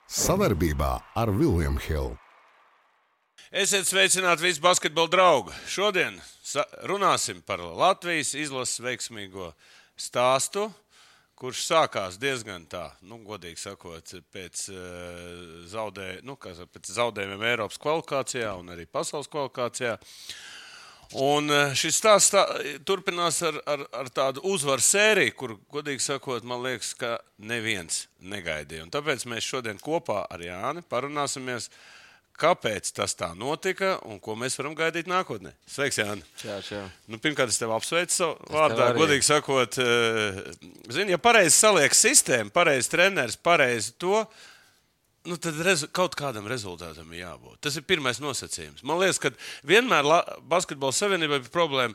Savarbībā ar William Hill. Esiet sveicināti visi basketbola draugi. Šodien runāsim par Latvijas izlases veiksmīgo stāstu, kurš sākās diezgan tā, godīgi sakot, pēc zaudējumiem Eiropas kvalifikācijā un arī pasaules kvalifikācijā. Un šis stāsts turpinās ar tādu uzvaru sēriju, kur, godīgi sakot, man liekas, ka neviens negaidīja. Un tāpēc mēs šodien kopā ar Jāni parunāsimies, kāpēc tas tā notika un ko mēs varam gaidīt nākotnē. Sveiks, Jāni! Čau. Pirmkārt, es tevi apsveicu savu vārdā. Godīgi sakot, ja pareizi saliek sistēmu, pareizi treneris, pareizi to, tad kaut kādam rezultātam ir jābūt. Tas ir pirmais nosacījums. Man liekas, ka vienmēr basketbola savienībai bija problēma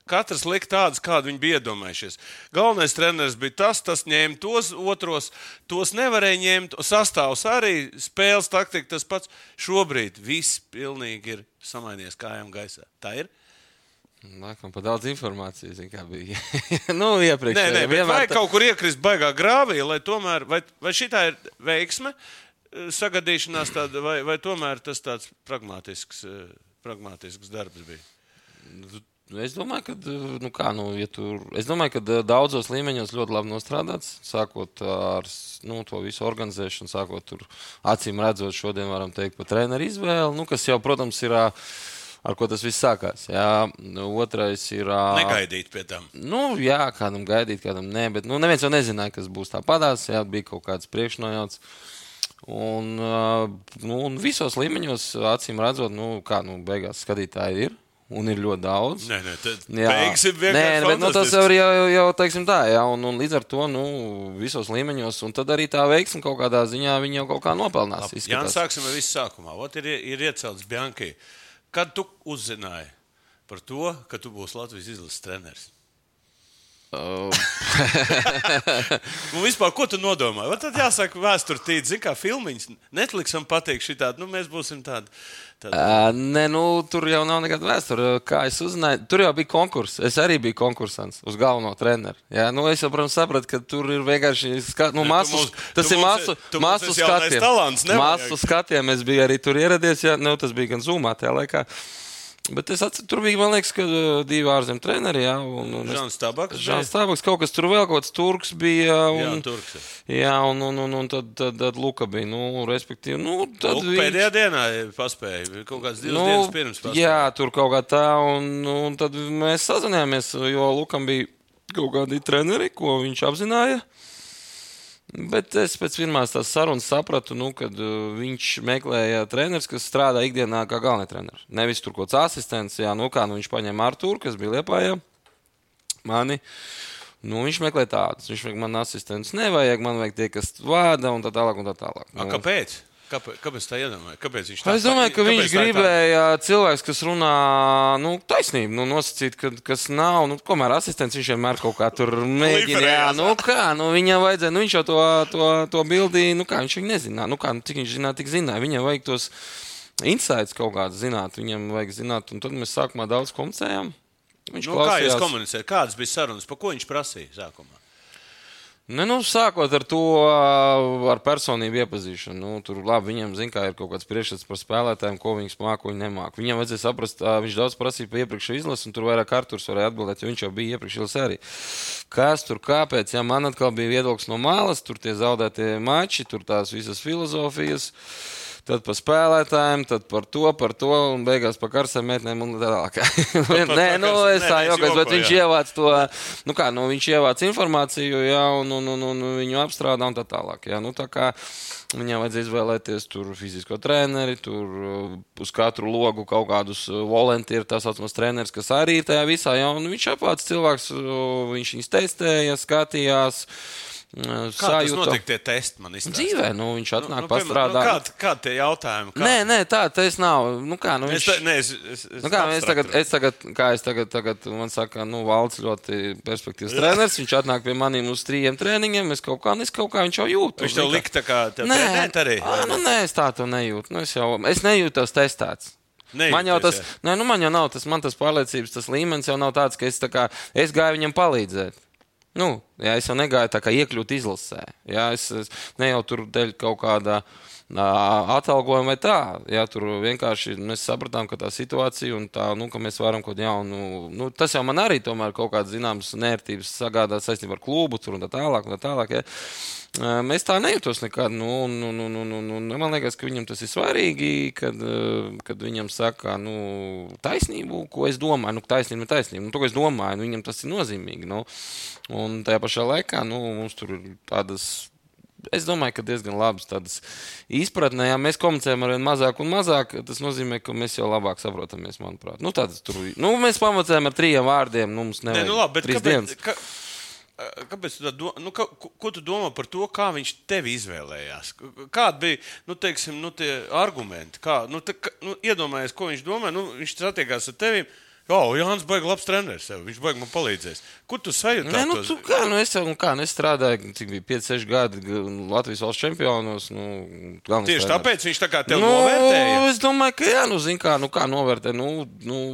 katrs likt tādus, kādu viņi bija iedomājušies. Galvenais treneris bija tas ņēma tos otros, tos nevarēja ņemt, sastāvs arī, spēles taktika tas pats. Šobrīd viss pilnīgi ir samainies kājām gaisā. Tā ir? Nākam pa daudz informācijas, kā bija. Iepriekš. Nē, bet vai kaut kur iekrist baigā grāvī, lai tomēr, vai šitā ir veiksme sagadīšanās tāda, vai tomēr tas tāds pragmātisks darbs bija? Es domāju, ka daudzos līmeņos ļoti labi nostrādāts, sākot ar to visu organizēšanu, sākot tur acīm redzot šodien varam teikt pa treneru izvēli, kas jau, protams, ir ar ko tas viss sākās. Jā. Otrais ir... Negaidīt pie tam. Kādam gaidīt, kādam nē, bet neviens jau nezināja, kas būs tāpadās. Jā, bija kaut kāds priekšnojauts. Un visos līmeņos, acīm redzot, beigās skatītāji ir. Un ir ļoti daudz. Beigas ir vienkārši fantastisks. Tas jau teiksim tā, jā. Un līdz ar to, visos līmeņos. Un tad arī tā veiksme kaut kādā ziņā viņi jau kaut kā nopelnās. Jā, sāksim ar visu sākumā. Ir iecelts Bianchi. Kad tu uzzināji par to, ka tu būsi Latvijas izlases treneris? Vispār, ko tu nodomāji? Vai tad jāsaka vēsturi tīd, zin kā filmiņas? Netflixam patīk šitādi, mēs būsim tādi. Tur jau nav nekāda vēsture. Kā es uzzināju, tur jau bija konkurss. Es arī biju konkursants uz galveno treneru. Jā, es jau, protams, sapratu, ka tur ir vienkārši masu skatiem. Masu skatiem es biju arī tur ieradies, jā, tas bija gan Zoomā tajā laikā. Bet es atceru, tur bija, man liekas, ka 2 ārzem treneri, jā. Žāns Tabaks. Žāns Tabaks, kaut kas tur vēl, kaut kāds turks bija. Turks. Jā, un tad Luka bija, respektīvi. Luka pēdējā dienā paspēja, kaut kāds 2 dienas pirms paspēja. Jā, tur kaut kā tā, un tad mēs sazinājāmies, jo Lukam bija kaut kādi treneri, ko viņš apzināja. Bet es pēc pirmās tās sarunas sapratu, kad viņš meklēja treneris, kas strādā ikdienā kā galvenais treneris. Nevis tur kaut kāds asistents, viņš paņēma Artūru, kas bija Liepājā, mani. Viņš meklē tādus. Viņš vajag man asistents nevajag, man vajag tie, kas vada un tā tālāk. Kāpēc? Kāpēc tā iedomāja? Kāpēc viņš tā? Es domāju, ka viņš gribēja cilvēks, kas runā taisnību, nosacīt, kas nav, komēr asistents viņš vienmēr kaut kā tur mēģina, viņam vajadzēja, viņš jau to bildīja, viņš viņu nezināja, cik viņš zināja, tik zināja, viņam vajag tos insights kaut kāds zināt, viņam vajag zināt, un tad mēs sākumā daudz komunicējām. Kā jūs komunicējat? Kādas bija sarunas? Pa ko viņš prasīja sākumā? Sākot ar to, ar personību iepazīšanu. Tur labi, viņam, ir kaut kāds priekšstats par spēlētājiem, ko viņš māca, ko viņi nemāca. Viņam vajadzēja saprast, viņš daudz prasīja par iepriekšējo izlasi, un tur vairāk Arturs varēja atbildēt, jo viņš jau bija iepriekšējā izlasē arī. Kas tur, kāpēc? Jā, man atkal bija viedoklis no malas, tur tie zaudētie mači, tur tās visas filozofijas. Tad par spēlētājiem, tad par to, un beigās par karsēm mētnēm un tālāk. Es tā jokais, bet viņš ievāc to, viņš ievāc informāciju, jā, un viņu apstrādā un tā tālāk, jā. Tā kā viņam vajadzēja izvēlēties tur fizisko treneri, tur uz katru logu kaut kādus volunteeri, tā saucamās treneris, kas arī ir tajā visā, jā, un viņš apvāc cilvēks, viņš viņus testēja, skatījās. Kā tas notika tie testi, man izstāst? Dzīvē, viņš atnāk pastrādā. Kādi tie jautājumi? Nē, tā tas nav. Es tagad, man saka, Valds ļoti perspektīvs treneris, viņš atnāk pie maniem uz 3 treniņiem, es kaut kā, viņš jau jūt. Viņš tev lika tā kā trenēt arī? Nē, es tā to nejūtu. Es nejūtu tos testēts. Man jau nav tas, man tas pārliecības, tas līmenis jau nav tāds, ka es gāju viņam palīdzēt. Es jau negāju tā kā iekļūt izlasē. Jā, es ne jau tur dēļ kaut kādā atalgojuma vai tā. Jā, tur vienkārši mēs sapratām, ka tā situācija un tā, ka mēs varam kaut jaunu, tas jau man arī tomēr kaut kādas zināmas nērtības sagādāt saistībā ar klubu tur un tā tālāk. Jā. Mēs tā nejūtos nekad. Man liekas, ka viņam tas ir svarīgi, kad viņam saka taisnību, ko es domāju. Taisnība ir taisnība. To, ko es domāju, viņam tas ir nozīmīgi. Un tajā pašā laikā mums tur ir tādas, es domāju, ka diezgan labas tādas izpratnē. Ja mēs komunicējam ar vien mazāk un mazāk, tas nozīmē, ka mēs jau labāk saprotamies, manuprāt. Mēs pamacējam ar 3 vārdiem, mums nevajag 3 dienas. Kāpēc tu ko tu domā par to, kā viņš tevi izvēlējās? Kādi bija, tie argumenti? Iedomājies, ko viņš domā, viņš satiekās ar tevi. Jānis baigi labs treneris, viņš baigi man palīdzēs. Kur tu sajūtā? Es strādāju, cik bija 5-6 gadi Latvijas valsts čempionos. Tieši tāpēc viņš tā kā tev novērtēja? Es domāju, ka kā novērtē.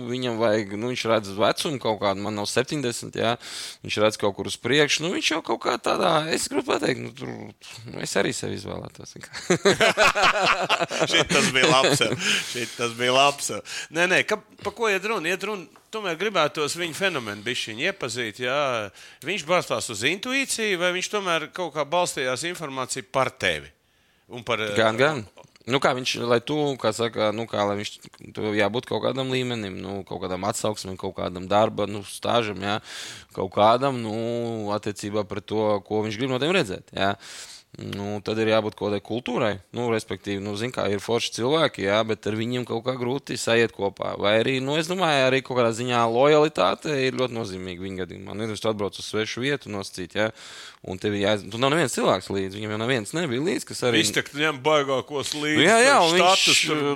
Viņam vajag, viņš redz vecumu kaut kādu, man nav 70, jā. Viņš redz kaut kur uz priekšu, viņš jau kaut kā tādā, es gribu pateikt, es arī sevi izvēlētos. Tas bija labs. Nē, pa ko iet runa? Tomēr gribētos viņa fenomenu bišķiņu iepazīt. Jā. Viņš balstās uz intuīciju, vai viņš tomēr kaut kā balstījās informāciju par tevi? Gan. Kā viņš, lai tu, kā saka, lai viņš tu jābūt kaut kādam līmenim, kaut kādam atsauksmam, kaut kādam darba, stāžam, jā, kaut kādam, attiecībā par to, ko viņš grib no tiem redzēt, jā. Tad ir jābūt kaut kādai kultūrai, respektīvi, ir forši cilvēki, jā, bet ar viņiem kaut kā grūti sajiet kopā. Vai arī, es domāju, arī kaut kādā ziņā lojalitāte ir ļoti nozīmīga viņa gadījumā. Tu atbrauc uz svešu vietu nosacīt, jā, un tev tu nav neviens cilvēks līdz, viņam jau neviens nebija līdz, kas arī... Viss tak ņem baigākos līdz. Jā,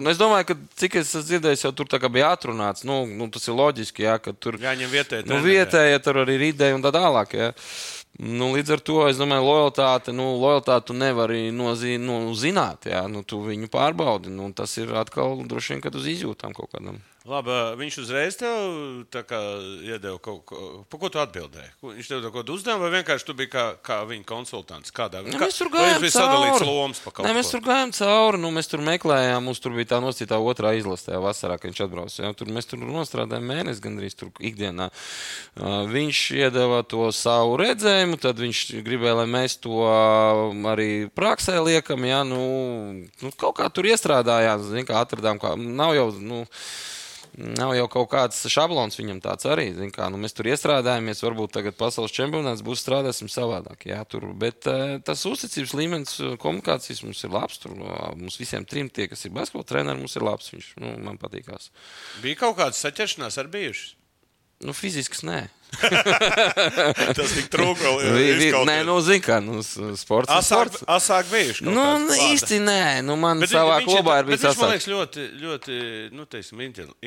un es domāju, ka cik es dzirdēju, jau tur tā kā bija atrunāts, tas ir loģiski, jā, ka tur... Jāņem vietēji. Vietēji, tur arī ir ideja un tā tālāk, jā. Līdz ar to, es domāju, lojalitāti tu nevari zināt, jā, tu viņu pārbaudi, tas ir atkal droši vien, kad uz izjūtām kaut kādam. Labi, viņš uzreiz tev tā kā iedeva kaut ko, pa ko tu atbildēji? Viņš tev kaut ko uzdeva, vai vienkārši tu biji kā viņa konsultants? Mēs tur gājām cauri. Mēs tur gājām cauri, mēs tur meklējām, mums tur bija tā nosacītā otrā izlase tajā vasarā, kad viņš atbrauc. Mēs tur nostrādājām mēnesi gandrīz tur ikdienā. Viņš iedeva to savu redzējumu, tad viņš gribēja, lai mēs to arī praksē liekam, jā, kaut kā tur iestrādājās, kā atradām, nav jau kaut kāds šablons viņam tāds arī. Mēs tur iestrādājamies, varbūt tagad pasaules čempionāts būs strādāsim savādāk. Jā, bet tas uzticības līmenis komunikācijas mums ir labs. Mums visiem 3 tie, kas ir basketbola treneri, mums ir labs. Viņš man patīkās. Bija kaut kādas saķeršanās ar bijušas? Fizisks nē. Tas tik trūka. Sports. Asāk bijuši kaut kāds. Īsti nē. Man savā klubā ir bijis asāk. Viņš, man liekas, ļoti,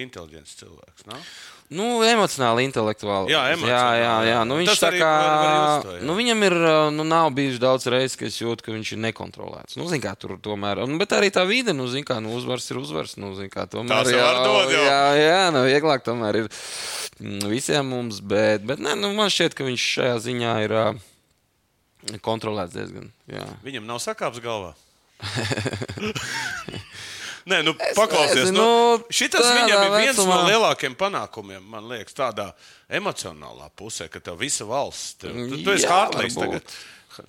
inteliģents cilvēks, nav? Emocionāli, intelektuāli. Jā, emocionāli. Jā. Viņš tā kā, viņam ir, nav bijuši daudz reizes, ka es jūtu, ka viņš ir nekontrolēts. Tur tomēr, bet arī tā vide, uzvars ir uzvars, tomēr. Tās var dot, jā, vieglāk tomēr ir visiem mums, bet man šķiet, ka viņš šajā ziņā ir kontrolēts diezgan, jā. Viņam nav sakāps galvā? Nē, paklausies. Šitas viņam ir viens no lielākiem panākumiem, man liekas, tādā emocionālā pusē, ka tev visa valsts, tu esi Hārtlīs tagad.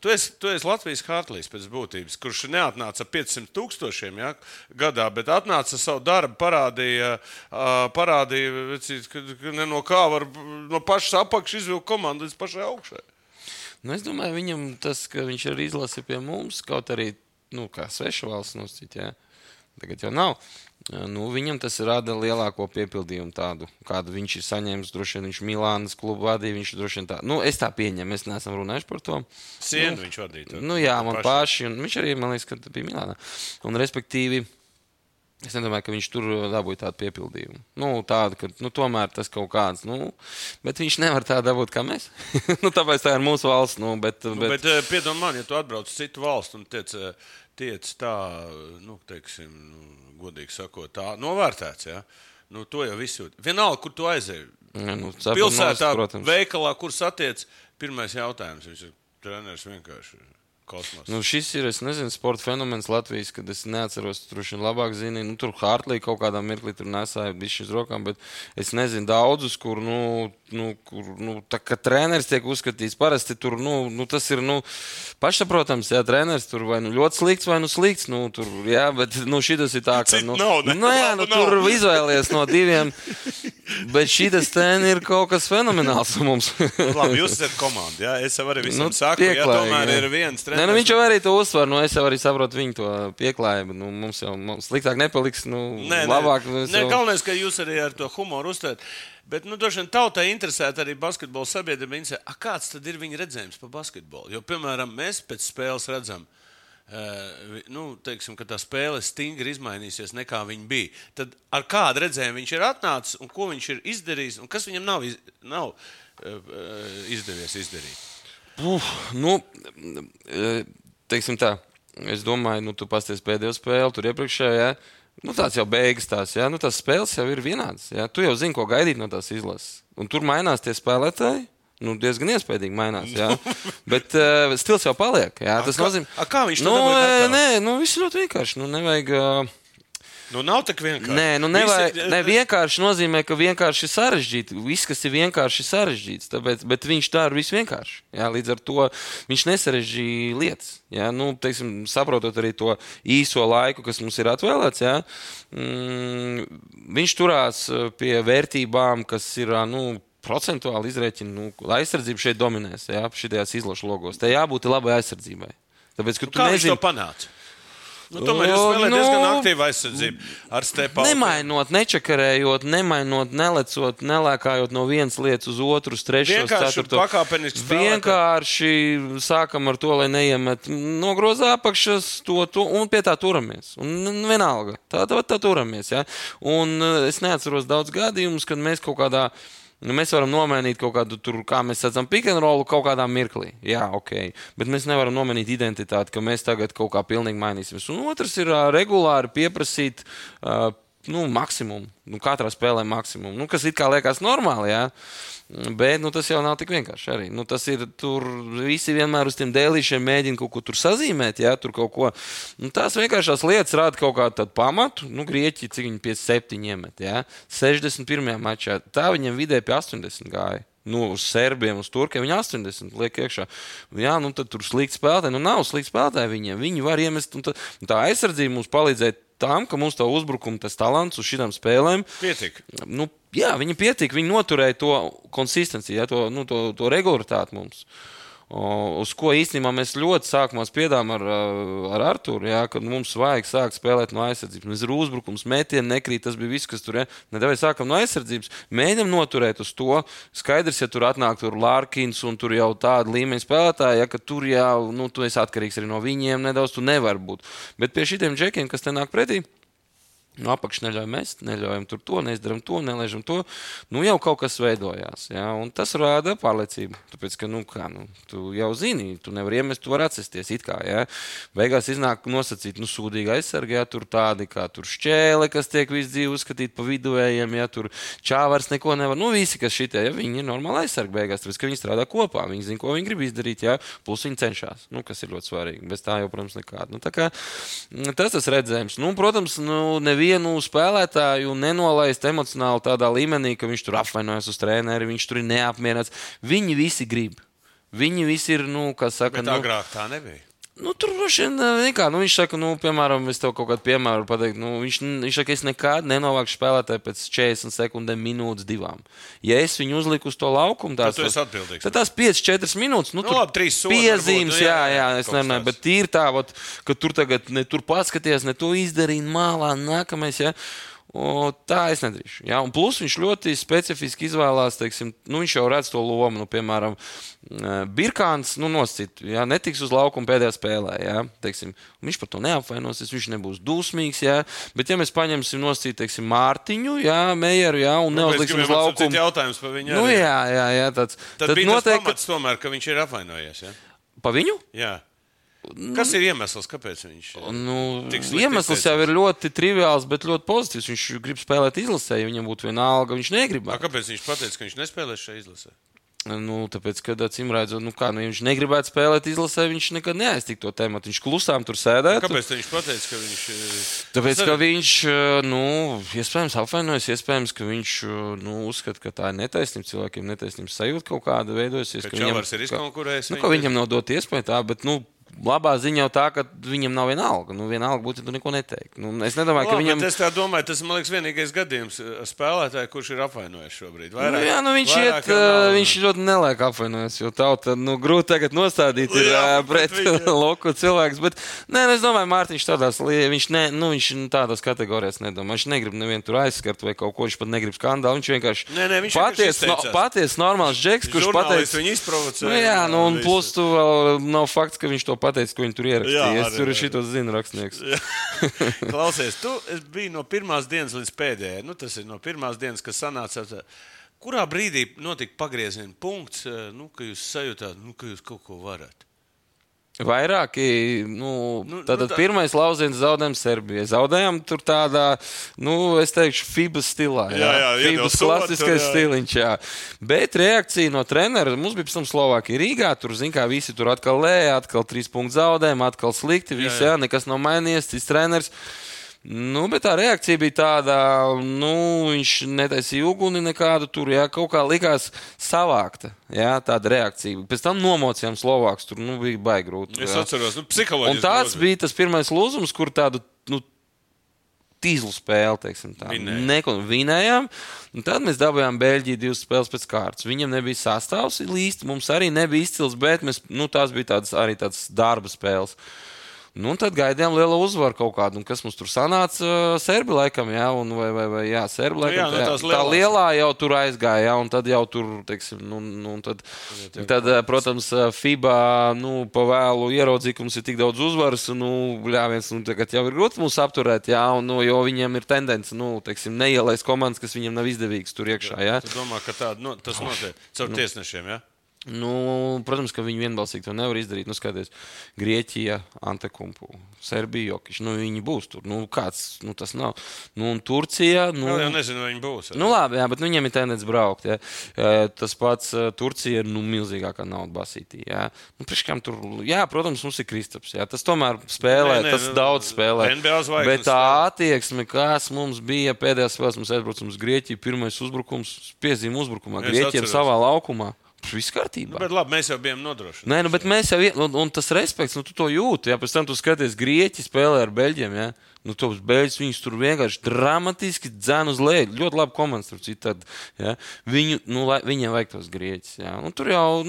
Tu esi Latvijas Hārtlīs pēc būtības, kurš neatnāca 500,000 gadā, bet atnāca savu darbu, parādīja, ka ne no kā var no pašas apakšas izvilkt komandu līdz pašai augšai. Es domāju, viņam tas, ka viņš arī izlasi pie mums, kaut arī, kā sveša valsts nosacīt, jā. Tagad jau nav. Viņam tas rada lielāko piepildījumu tādu, kādu viņš ir saņēmis. Droši vien viņš Milānas klubu vadīja, viņš droši vien tā. Es tā pieņemu, mēs neesam runājuši par to. Sienu viņš vadīja. Jā, man paši. Viņš arī, man liekas, ka bija Milānā. Un respektīvi, es nedomāju, ka viņš tur dabūja tādu piepildījumu. Tādu, ka, tomēr tas kaut kāds, bet viņš nevar tā dabūt kā mēs. Tāpēc tā ir mūsu valsts, bet piedod man, ja tu atbrauc uz citu valstu un tiec tā, teiksim, godīgi sakot, tā novērtēts, jā. Nu, to jau viss jūt. Vienalga, kur tu aizēji. Pilsētā, veikalā, kur satiec, pirmais jautājums. Viņš ir treneris vienkārši kosmos. Šis ir, es nezinu, sporta fenomens Latvijas, kad es neatceros, tur labāk zini. Tur Hartlī kaut kādā mirklī tur nesāja bišķi uz rokām, bet es nezinu daudzus, kur, tā kā treneris tiek uzskatīts, parasti tur, tas ir, pašsaprotams, jā, treneris tur vai ļoti slikts vai slikts, tur, jā, bet, šitas ir tā, ka, tur izvēlies no diviem, bet šitas ten ir kaut kas fenomenāls mums. Labi, jūs esat komanda, jā, es jau arī visam saku, ja tomēr ir viens treneris. Viņš jau arī to uzsver, es jau arī saprotu viņu to pieklājību, mums jau sliktāk nepaliks, labāk. Galvenais, ka jūs arī ar to humoru uzstājat. Bet, droši vien tautai interesēta arī basketbola sabiedrība. Kāds tad ir viņa redzējums par basketbolu? Jo, piemēram, mēs pēc spēles redzam, teiksim, ka tā spēle stingri izmainīsies nekā viņa bija. Tad ar kādu redzējumu viņš ir atnācis un ko viņš ir izdarījis un kas viņam nav izdevies izdarīt? Teiksim tā, es domāju, tu pasties pēdējo spēli, tur iepriekšējā, tāds jau beigas tās, jā, tās spēles jau ir vienādas, jā, tu jau zini, ko gaidīt no tās izlases, un tur mainās tie spēlētāji, diezgan iespējīgi mainās, jā, bet stils jau paliek, jā, tas nozīmē. Kā viņš to dabūja? Nē, viss ļoti vienkārši, nevajag. Nav tak vienkārši. Nē, vienkārši nozīmē, ka vienkārši ir sarežģīti. Viss, kas ir vienkārši sarežģīts, bet viņš tā ir viss vienkārši. Jā, līdz ar to viņš nesarežģīja lietas. Jā, teiksim, saprotot arī to īso laiku, kas mums ir atvēlēts, jā, viņš turās pie vērtībām, kas ir, procentuāli izrēķina, aizsardzība šeit dominēs, jā, šitajās izlašu logos. Tā jābūt labai aizsardzībai. Tāpēc, ka kā viņš to panāca? Tomēr jūs spēlējat diezgan aktīvu aizsardzību ar Stepu. Nemainot, nečakarējot, nelecot, nelēkājot no vienas lietas uz otru, uz trešo, ceturto. Vienkārši sākam ar to, lai neiemet nogrozā apakšas to un pie tā turamies. Un vienalga, tā turamies. Ja? Un es neatceros daudz gadījumus, kad mēs kaut kādā mēs varam nomainīt kaut kādu tur, kā mēs sacām, pick and rollu kaut kādā mirklī. Jā, ok. Bet mēs nevaram nomainīt identitāti, ka mēs tagad kaut kā pilnīgi mainīsimies. Un otrs ir regulāri pieprasīt maksimumu. Katrā spēlē maksimumu. Kas it kā liekas normāli, jā. Bet tas jau nav tik vienkārši arī. Tas ir tur visi vienmēr uz tiem dēlīšiem mēģina kaut ko tur sazīmēt, jā, tur kaut ko. Tās vienkāršās lietas rāda kaut kādu tādu pamatu. Grieķi, cik viņi 57 iemet, jā. 61. mačā. Tā viņiem vidē pie 80 gāja. Uz serbiem, uz turkiem viņi 80 liek iekšā. Jā, tad tur slikti spēlētāji. Nav slikti spēlētāji viņiem. Viņi var iemest. Tā aizsardzība mums palīdzēja tam, ka mums tā uzbrukuma, tas talants uz šitām spēlēm. Pietika. Jā, viņi pietika, viņi noturēja to konsistenciju, ja, to regularitāti mums. Uz ko īstenībā mēs ļoti sākumā spiedām ar Arturu, ja, kad mums vajag sākt spēlēt no aizsardzības. Mēs ir uzbrukums, metieni nekrīt, tas bija viss, kas tur, ja. Nedēļ sākam no aizsardzības, mēģinam noturēt uz to. Skaidrs, ja tur atnāk tur Larkins un tur jau tāda līmeņa spēlētāja, ja, ka tur jau, tu esi atkarīgs arī no viņiem nedaudz, tu nevar būt. Bet pie šitiem džekiem, kas te nāk pretī, apakš neļauj mest, neļaujam tur to, neizdaram to, nelaižam to. Jau kaut kas veidojās. Ja? Un tas rāda pārliecību. Tāpēc, ka, tu jau zini, tu nevari iemest, tu vari atsisties it kā. Ja? Beigās iznāk nosacīt, sūdīgi aizsargi, ja? Tur tādi kā tur šķēle, kas tiek visu dzīvi uzskatīt pa viduvējiem, ja? Tur čāvars neko nevar. Visi, kas šitie, ja? Viņi ir normāli aizsargi beigās, tāpēc, ka viņi strādā kopā. Viņi zina, ko viņi grib izdarīt, ja? Plus viņi cenšas, kas ir ļoti svarīgi. Bez tā jau, protams, nekāda. Tā kā tas redzējums. Protams, vienu spēlētāju nenolaist emocionāli tādā līmenī, ka viņš tur apvainojas uz treneri, viņš tur ir neapmierināts. Viņi visi grib. Viņi visi ir, kā saka... Bet agrāk tā nebija. Tur viņš saka, piemēram, es tev kaut kādu piemēru pateikt, viņš saka, es nekad nenovākšu spēlētāju pēc 40 sekundēm minūtes 2. Ja es viņu uzliku uz to laukumu, tad tu esi atbildīgs. Tad tās 5-4 minūtes, tur piezīmes, jā, es nerunāju, bet tīri tā, ka tur tagad ne tur paskaties, ne to izdarīja mālā, nākamais, jā. Tā es nedarīšu. Ja? Un plus viņš ļoti specifiski izvēlās, teiksim, viņš jau redz to lomu, piemēram, Birkāns, noscīt, ja? Netiks uz laukumu pēdējā spēlē, ja? Teiksim, viņš par to neapvainosies, viņš nebūs dusmīgs, ja? Bet ja mēs paņemsim noscīt, teiksim, Mārtiņu, ja? Mejeru, ja? Un neuzliksim uz laukumu. Jautājums par viņu. Jā, tāds. Tad bija tas pamats tomēr, ka viņš ir apvainojies, ja? Pa viņu? Jā. Kas ir iemesls, kāpēc viņš iemesls jau ir ļoti triviāls, bet ļoti pozitīvs. Viņš grib spēlēt izlasē, ja viņam būtu vienalga, viņš negrib. Kāpēc viņš pateica, ka viņš nespēlēs šajā izlasē? Tāpēc, kad acīmredzot, ja viņš negribētu spēlēt izlasē, viņš nekad neaiztiktu to tēmatu. Viņš klusām tur sēdētu. Kāpēc viņš pateica, ka viņš... Tāpēc, ka viņš, iespējams apvainojas, iespējams, ka viņš, uzskata, ka tā ir netaisnība cilvēkiem, netaisnības sajūta kaut kāda veidojasies. Ka Čavars ir izkonkurējis. Ka viņam nav dot iespēju tā, bet, labā ziņa jau tā, ka viņam nav vienalga. Vienalga būtu, ja tu neko neteiktu. Es nedomāju, ka viņam... Es tā domāju, tas, man liekas, vienīgais gadījums spēlētāji, kurš ir apvainojies šobrīd. Viņš ļoti neliek apvainojies, jo tauta, grūti tagad nostādīt ir pret loku cilvēks. Bet, es domāju, Mārtiņš viņš tādās kategorijās nedomā. Viņš negrib nevienu tur aizskart vai kaut ko, viņš pat negrib skandālu. Viņš vienkārši paties normāls džeks, kurš pateica... Viņu izprovocēja. Un plus tu vēl nav fakts, ka viņš to pateica, ko viņi tur ierakstīja. Es tur šitos zinu rakstnieks. Klausies, tu biji no pirmās dienas līdz pēdējai. Tas ir no pirmās dienas, kas sanāca. Kurā brīdī notika pagrieziena punkts, ka jūs sajūtāt, ka jūs kaut ko varat? Vairāki, pirmais lauciens zaudējums Serbijai. Zaudējām tur tādā, es teikšu, FIBAS stilā. FIBAS klasiskais stiliņš, jā. Bet reakcija no trenera, mums bija pēc tam Slovākija Rīgā, tur, visi tur atkal lēja, atkal 3 punktu zaudējumi, atkal slikti, visi, nekas nav mainījies, cits treneris. Bet tā reakcija bija tāda, viņš netaisīja uguni nekādu tur, kaut kā likās savākta, tāda reakcija. Pēc tam nomocījām Slovākus, tur, bija baigi grūti. Es atceros, psiholoģiski. Un tāds bija tas pirmais lūzums, kur tādu, tīzlu spēli, teiksim tā. Vinējām, un tad mēs dabājām Beļģiju 2 spēles pēc kārtas. Viņam nebija sastāvs līsti, mums arī nebija izcils, bet mēs, tās bija tādas darba spēles. Tad gaidījām lielu uzvaru kaut kādu, un kas mums tur sanāca, Serbi laikam, Serbi laikam, tā lielā jau tur aizgāja, un tad jau tur, teiksim, tad, protams, FIBA, pa vēlu ieraudzīja, ka mums ir tik daudz uzvaras, tagad jau ir grūti mūs apturēt, jo viņiem ir tendence, teiksim, neielaist komandas, kas viņiem nav izdevīgs tur iekšā, Tu domā, ka tas notiek caur tiesnešiem, Protams, ka viņi vienbalsīgi to nevar izdarīt. Skaties, Grieķija, Antekumpu, Serbija, Jokiš. Viņi būs tur. Kāds, tas nav. Un Turcija. Vēl jau nezinu, vai viņi būs. Labi, bet viņiem ir tendence braukt. Tas pats Turcija ir milzīgākā nauda basītī. Priekškām tur, protams, mums ir Kristaps. Tas tomēr spēlē, tas daudz spēlē. Bet tā attieksme, kas mums bija pēdējās spēlēs, mums aizbraucams Grieķija, pirmais uzbrukums, piezīme uzbrukumā. Grieķiem savā laukumā. Viss kārtībā. Bet labi, mēs jau bijām nodrošināti. Bet mēs jau, un tas respekts, tu to jūti, pēc tam tu skaties, Grieķi spēlē ar Beļģiem, tos Beļģis, viņus tur vienkārši dramatiski dzēn uz leju, ļoti labi komandas tur citādi, viņiem vajag tos Grieķis, tur jau,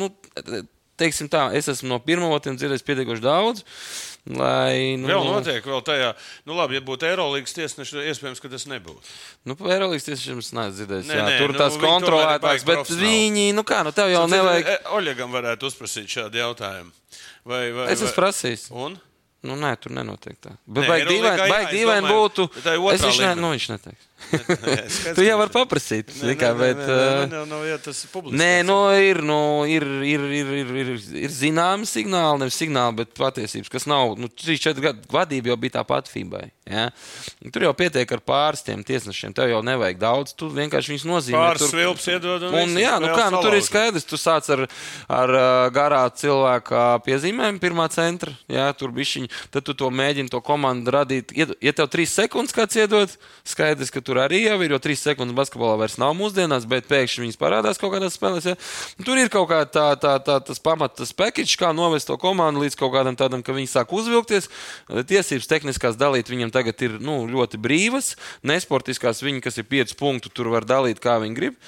teiksim tā, es esmu no pirmavotiem dzirdējis pietiekoši daudz, lai... Vēl notiek vēl tajā, labi, ja būtu Eirolīgas tiesneši, iespējams, ka tas nebūtu. Eirolīgas tiesnešiem es neesmu dzirdējis, tur tās kontrolētās, bet viņi, tev jau nevajag... Oļegam varētu uzprasīt šādu jautājumu. Es esmu prasījis. Un? Nē, tur nenotiek tā. Bet baigi dīvaini būtu... Viņš neteiks. Tu jau vari paprasīt. Tas ir publiski. Ir zināmi signāli, nevis signāli, bet patiesības, kas nav. 3-4 gadu vadība jau bija tā pati FIBai. Tur jau pietiek ar pāris tiem tiesnešiem. Tev jau nevajag daudz. Tu vienkārši viņus nozīmē. Pāris svilps iedod un tur ir skaidrs. Tu sāc ar garā cilvēka piezīmēm pirmā centra. Tur bišķiņ. Tad tu to mēģini to komandu radīt. Ja tev 3 sekundes kāds iedod, skaidrs, ka tur arī jau ir, jo 3 sekundes basketbolā vairs nav mūsdienās, bet pēkšņi viņas parādās kaut kādās spēlēs. Tur ir kaut kā tas pamatas package, kā novest to komandu līdz kaut kādam tādam, ka viņi sāk uzvilkties. Tiesības tehniskās dalīt viņam tagad ir ļoti brīvas. Nesportiskās viņi, kas ir 5 punktu, tur var dalīt, kā viņi grib.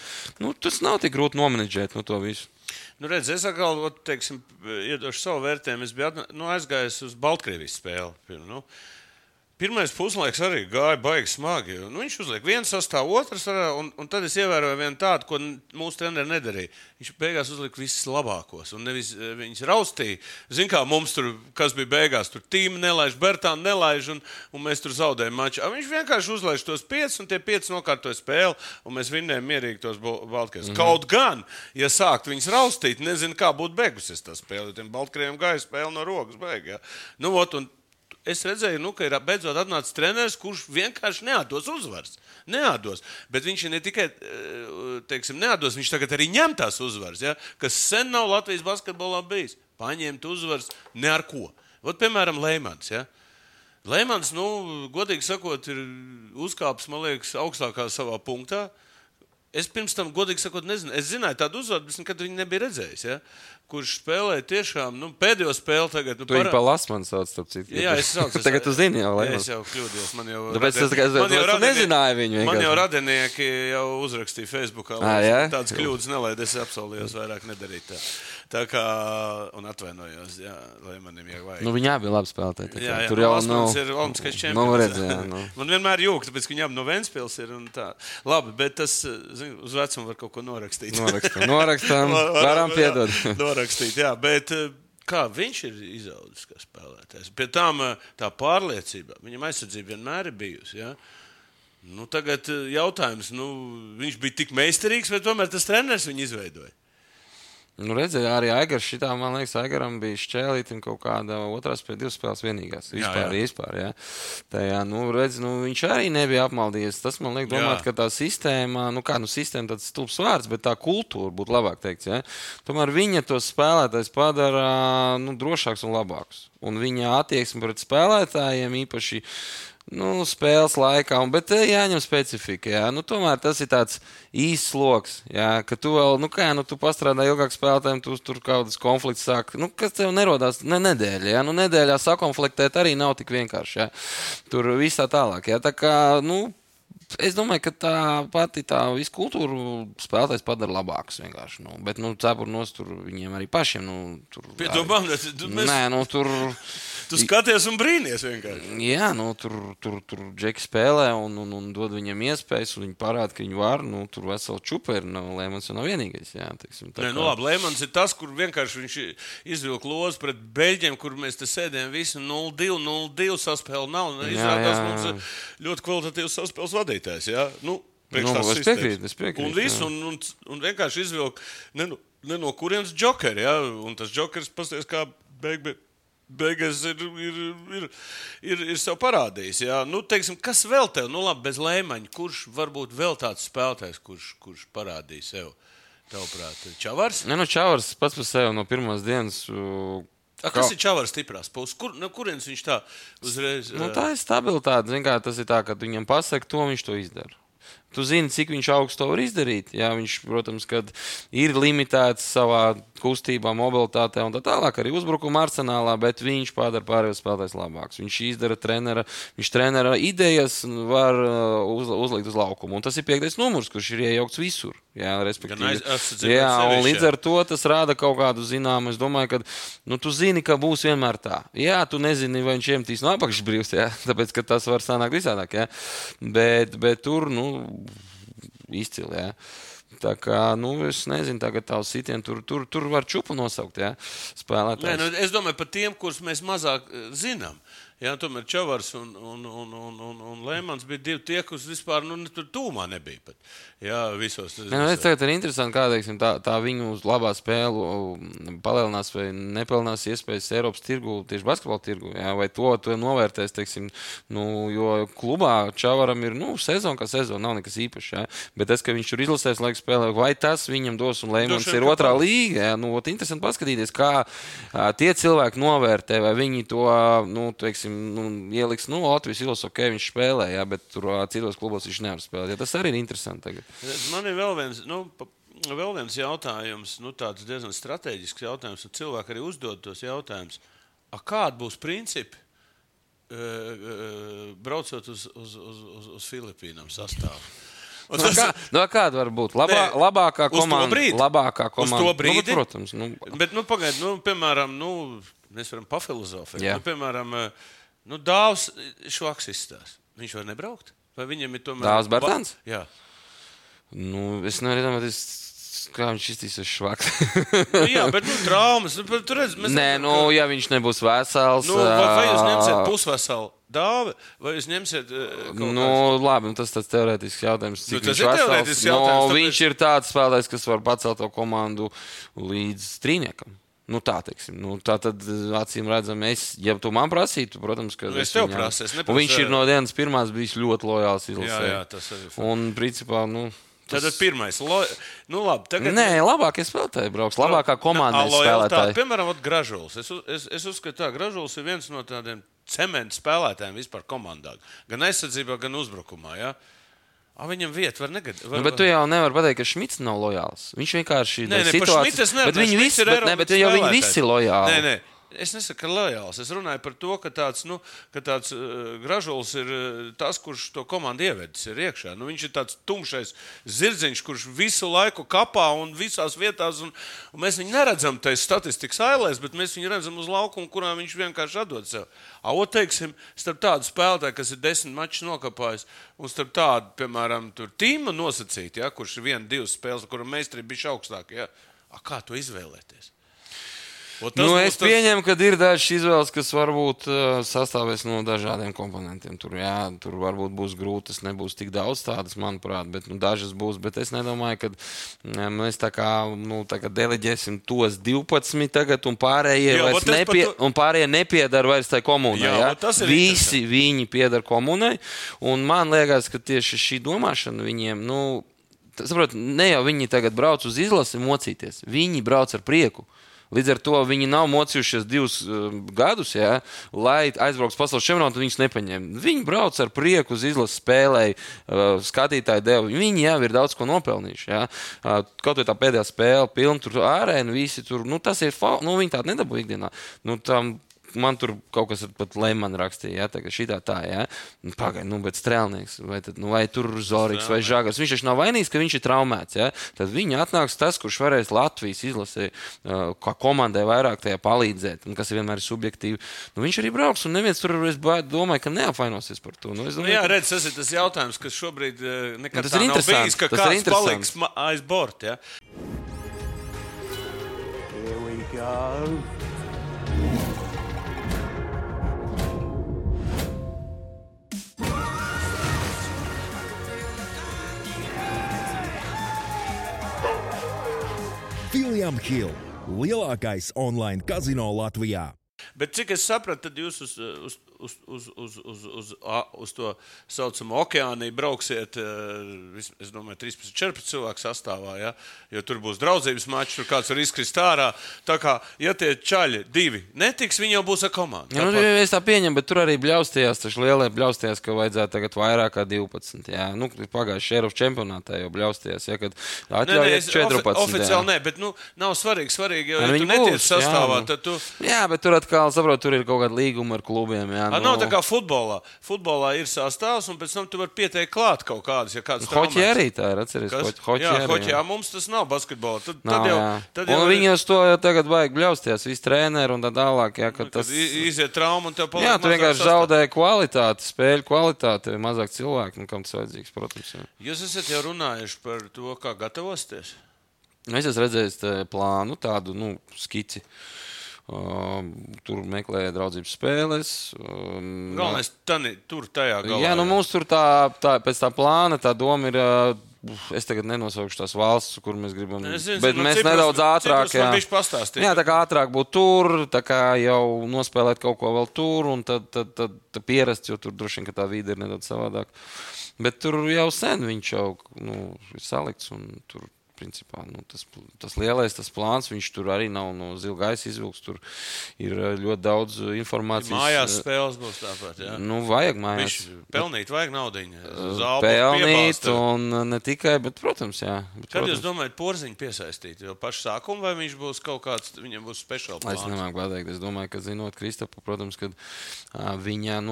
Tas nav tik grūti nomenedžēt to visu. Redz, es atkal, iedošu savu vērtējumu. Es biju aizgājis uz Baltkrievijas spēli. Pirmais puslaiks arī gāja baigi smagi. Viņš uzliek vienu sastāvu, otrs, un tad es ievēroju vienu tādu, ko mūsu treneri nedarīja. Viņš beigās uzlika visus labākos, un nevis viņus raustīja. Zin kā mums tur, kas bija beigās, tur Tīma nelaiž, Bertāna nelaiž, un mēs tur zaudējam maču. Viņš vienkārši uzlaiž tos 5, un tie 5 nokārtoja spēli, un mēs vinnējam mierīgi tos Baltkrievus. Kaut gan, ja sākt viņus raustīt, nezinu, kā būtu beigusies tā spēle, jo tiem Baltkrieviem gāja spēle no rokas beigā. Nu, un es redzēju, ka ir beidzot atnācis treneris, kurš vienkārši neatdos uzvaras. Neatdos. Bet viņš ne tikai, neatdos, viņš tagad arī ņem tās uzvaras, ja? Kas sen nav Latvijas basketbolā bijis. Paņemt uzvaras ne ar ko. Piemēram, Leimans, ja? Leimans, godīgi sakot, ir uzkāpis, man liekas, augstākā savā punktā. Es pirms tam, godīgi sakot, nezinu. Es zināju tādu uzvaru, bet nekad viņu nebija redzējis, ja? Kurš spēlēja tiešām, pēdējo spēli tagad. Tu viņu pa Lasmanu sauc, starp citu. Jā, es saucu. Tagad tu zini jau, Leimans. Es jau kļūdījos. Tu nezināji viņu. Man jau radinieki jau uzrakstīja Facebookā. Tāds kļūdas nelaid, es apsolījos vairāk nedarīt tā. Tā kā, un atvainojos, jā, Leimanim jau vajag. Viņi abi labi spēlētāji. Jā, Lasmans ir olimpiskais čempions. Man vienmēr jūg, tāpēc, ka viņi abi no Ventspils ir un tā. Labi, bet tas, zinu, uz vecumu var kaut ko norakstīt. Norakstam, varam piedod. Norakstīt, jā, bet kā viņš ir izaudzis kā spēlētājs. Pie tām tā pārliecība, viņam aizsardzība vienmēr ir bijusi, jā. Tagad jautājums, viņš bija tik meistarīgs, vai tomēr tas treneris viņu izveidoja? Redzēju, arī Aigars šitā, man liekas, Aigaram bija šķēlītim kaut kāda otrās pēc 2 spēles vienīgās. Vispār, jā. Tajā, viņš arī nebija apmaldījies. Tas, man liekas, domāt, ka tā sistēma, sistēma tāds stulbs vārds, bet tā kultūra būtu labāk teikts, jā. Tomēr viņa tos spēlētājs padara, drošāks un labāks. Un viņa attieksme pret spēlētājiem īpaši, spēles laikā, bet jāņem specifika, jā. Tomēr tas ir tāds īsts sloks, jā, ka tu vēl, tu pastrādā ilgāk spēlētājiem, tu tur kādas konflikts sāk, kas tev nerodās nedēļā, jā. Nedēļā sakonfliktēt arī nav tik vienkārši, jā. Tur visā tālāk, jā. Tā kā, es domāju, ka tā pati tā visu kultūru spēlētājs padara labākus vienkārši, bet, cepurnos tur viņiem arī pašiem, tur... Piedomām, tur... Tu skaties un brīnies vienkārši. Jā, tur Džeki spēlē un dod viņam iespējas, un viņi parāda, ka viņi var, tur veseli čupa ir, Leimans jau nav vienīgais, jā, teiksim. Labi, Leimans ir tas, kur vienkārši viņš izvilk lozu pret Beļģiem, kur mēs te sēdējam visi 0-2 saspēle nav, izrādās mums ļoti kvalitatīvs saspēles vadītājs, jā. Es piekrītu. Un visu, un vienkārši izvilk ne no kurienes džokeri, jā, un tas džokers pasties kā beigās ir sev parādījis. Jā. Kas vēl tev? Labi, bez Leimaņa. Kurš varbūt vēl tāds spēlētājs, kurš parādīja sev? Tavuprāt, Čavars? Čavars pats par sevi no pirmās dienas. Kas ir Čavars stiprās puses? Kurienes viņš tā uzreiz? Tā ir stabilitāte. Tas ir tā, ka viņam pasaka, to viņš to izdara. Tu zini, cik viņš augstu to var izdarīt. Jā, viņš, protams, kad ir limitēts savā kustībā, mobilitātē un tā tālāk, arī uzbrukuma arsenālā, bet viņš padara pārējos spēlētājs labāks. Viņš izdara trenera idejas var uzlikt uz laukumu. Un tas ir 5. numurs, kurš ir iejaukts visur. Jā, respektīvi. Jā, un līdz ar to tas rāda kaut kādu zināmu. Es domāju, ka tu zini, ka būs vienmēr tā. Jā, tu nezini, vai viņš iemetīs no apakšas brīvs, jā, tāpēc, ka tas var sanākt visādāk, jā. Bet tur, izcili, jā. Tā kā, es nezinu, tagad tavs sitien, tur var čupu nosaukt, jā, spēlētājs. Es domāju par tiem, kurus mēs mazāk zinām. Jā, tomēr Čavars un Leimans bija 2 tie, kurus vispār tur tūmā nebija pat. Jā, visos. Es tagad ir interesanti, kā, teiksim, tā viņu uz labā spēlu palielinās vai nepalielinās iespējas Eiropas tirgu, tieši basketbola tirgu, jā, vai to novērtēs, teiksim, jo klubā Čavaram ir, sezona kā sezona, nav nekas īpašs, jā, bet tas, ka viņš tur izlasēs laiku spēlē, vai tas viņam dos, un Leimans ir otrā līga, jā, interesanti paskatīties, kā tie cilvēki novērtē, vai viņi to, teiksim, ieliks, Latvijas ilas, ok, viņš spēlē, jā, bet tur citos klubos viņš nevar spēlēt. Jā, tas arī ir interesanti tagad. Man ir vēl viens jautājums, tāds diezgan strateģisks jautājums, un cilvēki arī uzdod tos jautājumus. Kādi būs principi, braucot uz Filipīnām sastāvu? Kāda var būt? Labākā komanda. Uz to brīdi? Protams. Bet, pagaid, piemēram, mēs varam pafilozofēt. Piemēram, Dāvs švaks izstās. Viņš var nebraukt? Vai viņam ir tomēr... Dāvs Bertāns? Jā. Es nevaru iedomāties, kā viņš iztīsies švaks. Jā, bet traumas. Tu redz, ja viņš nebūs vesels... vai jūs ņemsiet pusveselu Dāvi, vai jūs ņemsiet labi, tas tāds teorētisks jautājums. Cik viņš vesels? Viņš ir tāds spēlētājs, kas var pacelt to komandu līdz strīniekam. Tā teiksim. Tā tad acīm redzam, ja tu man prasītu, protams, ka es tev prasu. Un viņš ir no dienas pirmās bijis ļoti lojāls izlasē. Jā, tas arī. Un principā, Tātad pirmais. Labi, tagad... Nē, labākie spēlētāji brauks. Labākā komanda spēlētāji. Piemēram, Gražuls. Es uzskatu, ka Gražuls ir viens no tādiem cementu spēlētājiem vispār komandā. Gan aizsardzībā, gan uzbrukumā. Ja? Viņam vieta var negadīt. Bet tu jau nevari pateikt, ka Šmits nav lojāls. Viņš vienkārši ir situācijas. Bet viņi visi ir lojāli. Nē. Es nesaku, ka lojāls. Es runāju par to, ka tāds Gražuls ir tas, kurš to komandu ievedis ir iekšā. Viņš ir tāds tumšais zirdziņš, kurš visu laiku kapā un visās vietās. Un mēs viņu neredzam tajā statistikas ailēs, bet mēs viņu redzam uz laukumu, kurā viņš vienkārši atdod sev. Teiksim, starp tādu spēlētāju, kas ir 10 mačus nokapājis, un starp tādu, piemēram, tīma nosacīt, kurš ir 1-2 spēles, kura meistarība bija augstāka. Kā to izvēlēties? Es pieņemu, ka ir dažas izvēles, kas varbūt sastāvēs no dažādiem komponentiem. Tur varbūt būs grūti, tas nebūs tik daudz tādas, manuprāt, bet dažas būs. Bet es nedomāju, ka mēs tā kā deleģēsim tos 12 tagad, un pārējie nepiedara vairs tai komunai. Visi viņi piedara komunai, un man liekas, ka tieši šī domāšana viņiem, ne jau viņi tagad brauc uz izlasi mocīties, viņi brauc ar prieku. Līdz ar to viņi nav mocījušies 2 gadus, lai aizbrauktu pasaules čempionātu, un viņus nepaņem. Viņi brauc ar prieku uz izlases spēlēju, skatītāji deva. Viņi jau ir daudz ko nopelnījuši. Kaut vai tā pēdējā spēle, pilna tur ārēna, visi tur, tas ir viņi tādu nedabū ikdienā. Man tur kaut kas pat Lemman rakstīja, ka šitā tā, Pagaid, bet Strēlnieks, vai tur Zoriks vai Žagars. Viņš taču nav vainīgs, ka viņš ir traumēts, Tad viņi atnāks tas, kurš varēs Latvijas izlasē, kā komandai vairāk tajā palīdzēt, un kas vienmēr ir subjektīvi. Viņš arī brauks, un neviens tur, es domāju, ka neapvainosies par to. Redz, tas ir tas jautājums, kas šobrīd nekad tā nav bijis, ka kāds paliks aiz borta, Here we go. William Hill, lielākais online kazino Latvijā. Bet cik es sapratu, tad jūs uz to saucamo okeāniju brauksiet, es domāju, 13-14 cilvēku sastāvā, jo tur būs draudzības mačs, tur kāds var izkrist ārā. Tā kā, ja tie čaļi 2 netiks, viņi jau būs ar komandu. Es tā pieņemu, bet tur arī bļaustījās, taču lielie bļaustījās, ka vajadzētu tagad vairāk kā 12. Pagājuši Eiropas čempionātā jau bļaustījās, kad atļaujiet 14. Oficiāli nē, bet nav svarīgi, jo tu netiec sastāvā, tad tu... Jā, bet tur atkal, saprot, tur ir kaut kāda līguma ar klubiem, Nav tā kā futbolā. Futbolā ir sastāvs, un pēc tam tu vari pieteikt klāt kaut kādas, ja kāds traumēts. Hoķi arī tā ir, atceries. Hoķi, mums tas nav basketbolā. Un viņi uz to jau tagad vajag bļausties, visi treneri un tā tālāk, kad iziet trauma un tev paliek mazāk. Tu vienkārši zaudēji kvalitāti, spēļu kvalitāti, mazāk cilvēku, kam tas vajadzīgs, protams. Jūs esat jau runājuši par to, kā gatavosties? Es esmu redzējis plānu, tādu, skici. Tur meklēja draudzības spēles. Galvenais, tur tajā galā. Jā, mums tur pēc tā plāna tā doma ir, es tagad nenosaukšu tās valsts, kur mēs gribam, bet mēs nedaudz ātrāk, jā, tā kā ātrāk būt tur, tā kā jau nospēlēt kaut ko vēl tur, un tad pierast, jo tur droši vien, ka tā vide ir nedaudz savādāk. Bet tur jau sen viņš jau ir salikts, un tur principā, tas lielais, tas plāns, viņš tur arī nav no zila gaisa izvilks, tur ir ļoti daudz informācijas. Mājās spēles būs tāpat, jā? Vajag mājās. Pelnīt vajag naudiņu. Pelnīt, un ne tikai, bet, protams, jā. Kad jūs domājat Porziņu piesaistīt? Jo pašu sākumu, vai viņš būs kaut kāds, viņam būs speciāls plāns? Es nemāku pateikt. Es domāju, ka zinot Kristapu, protams, kad viņa,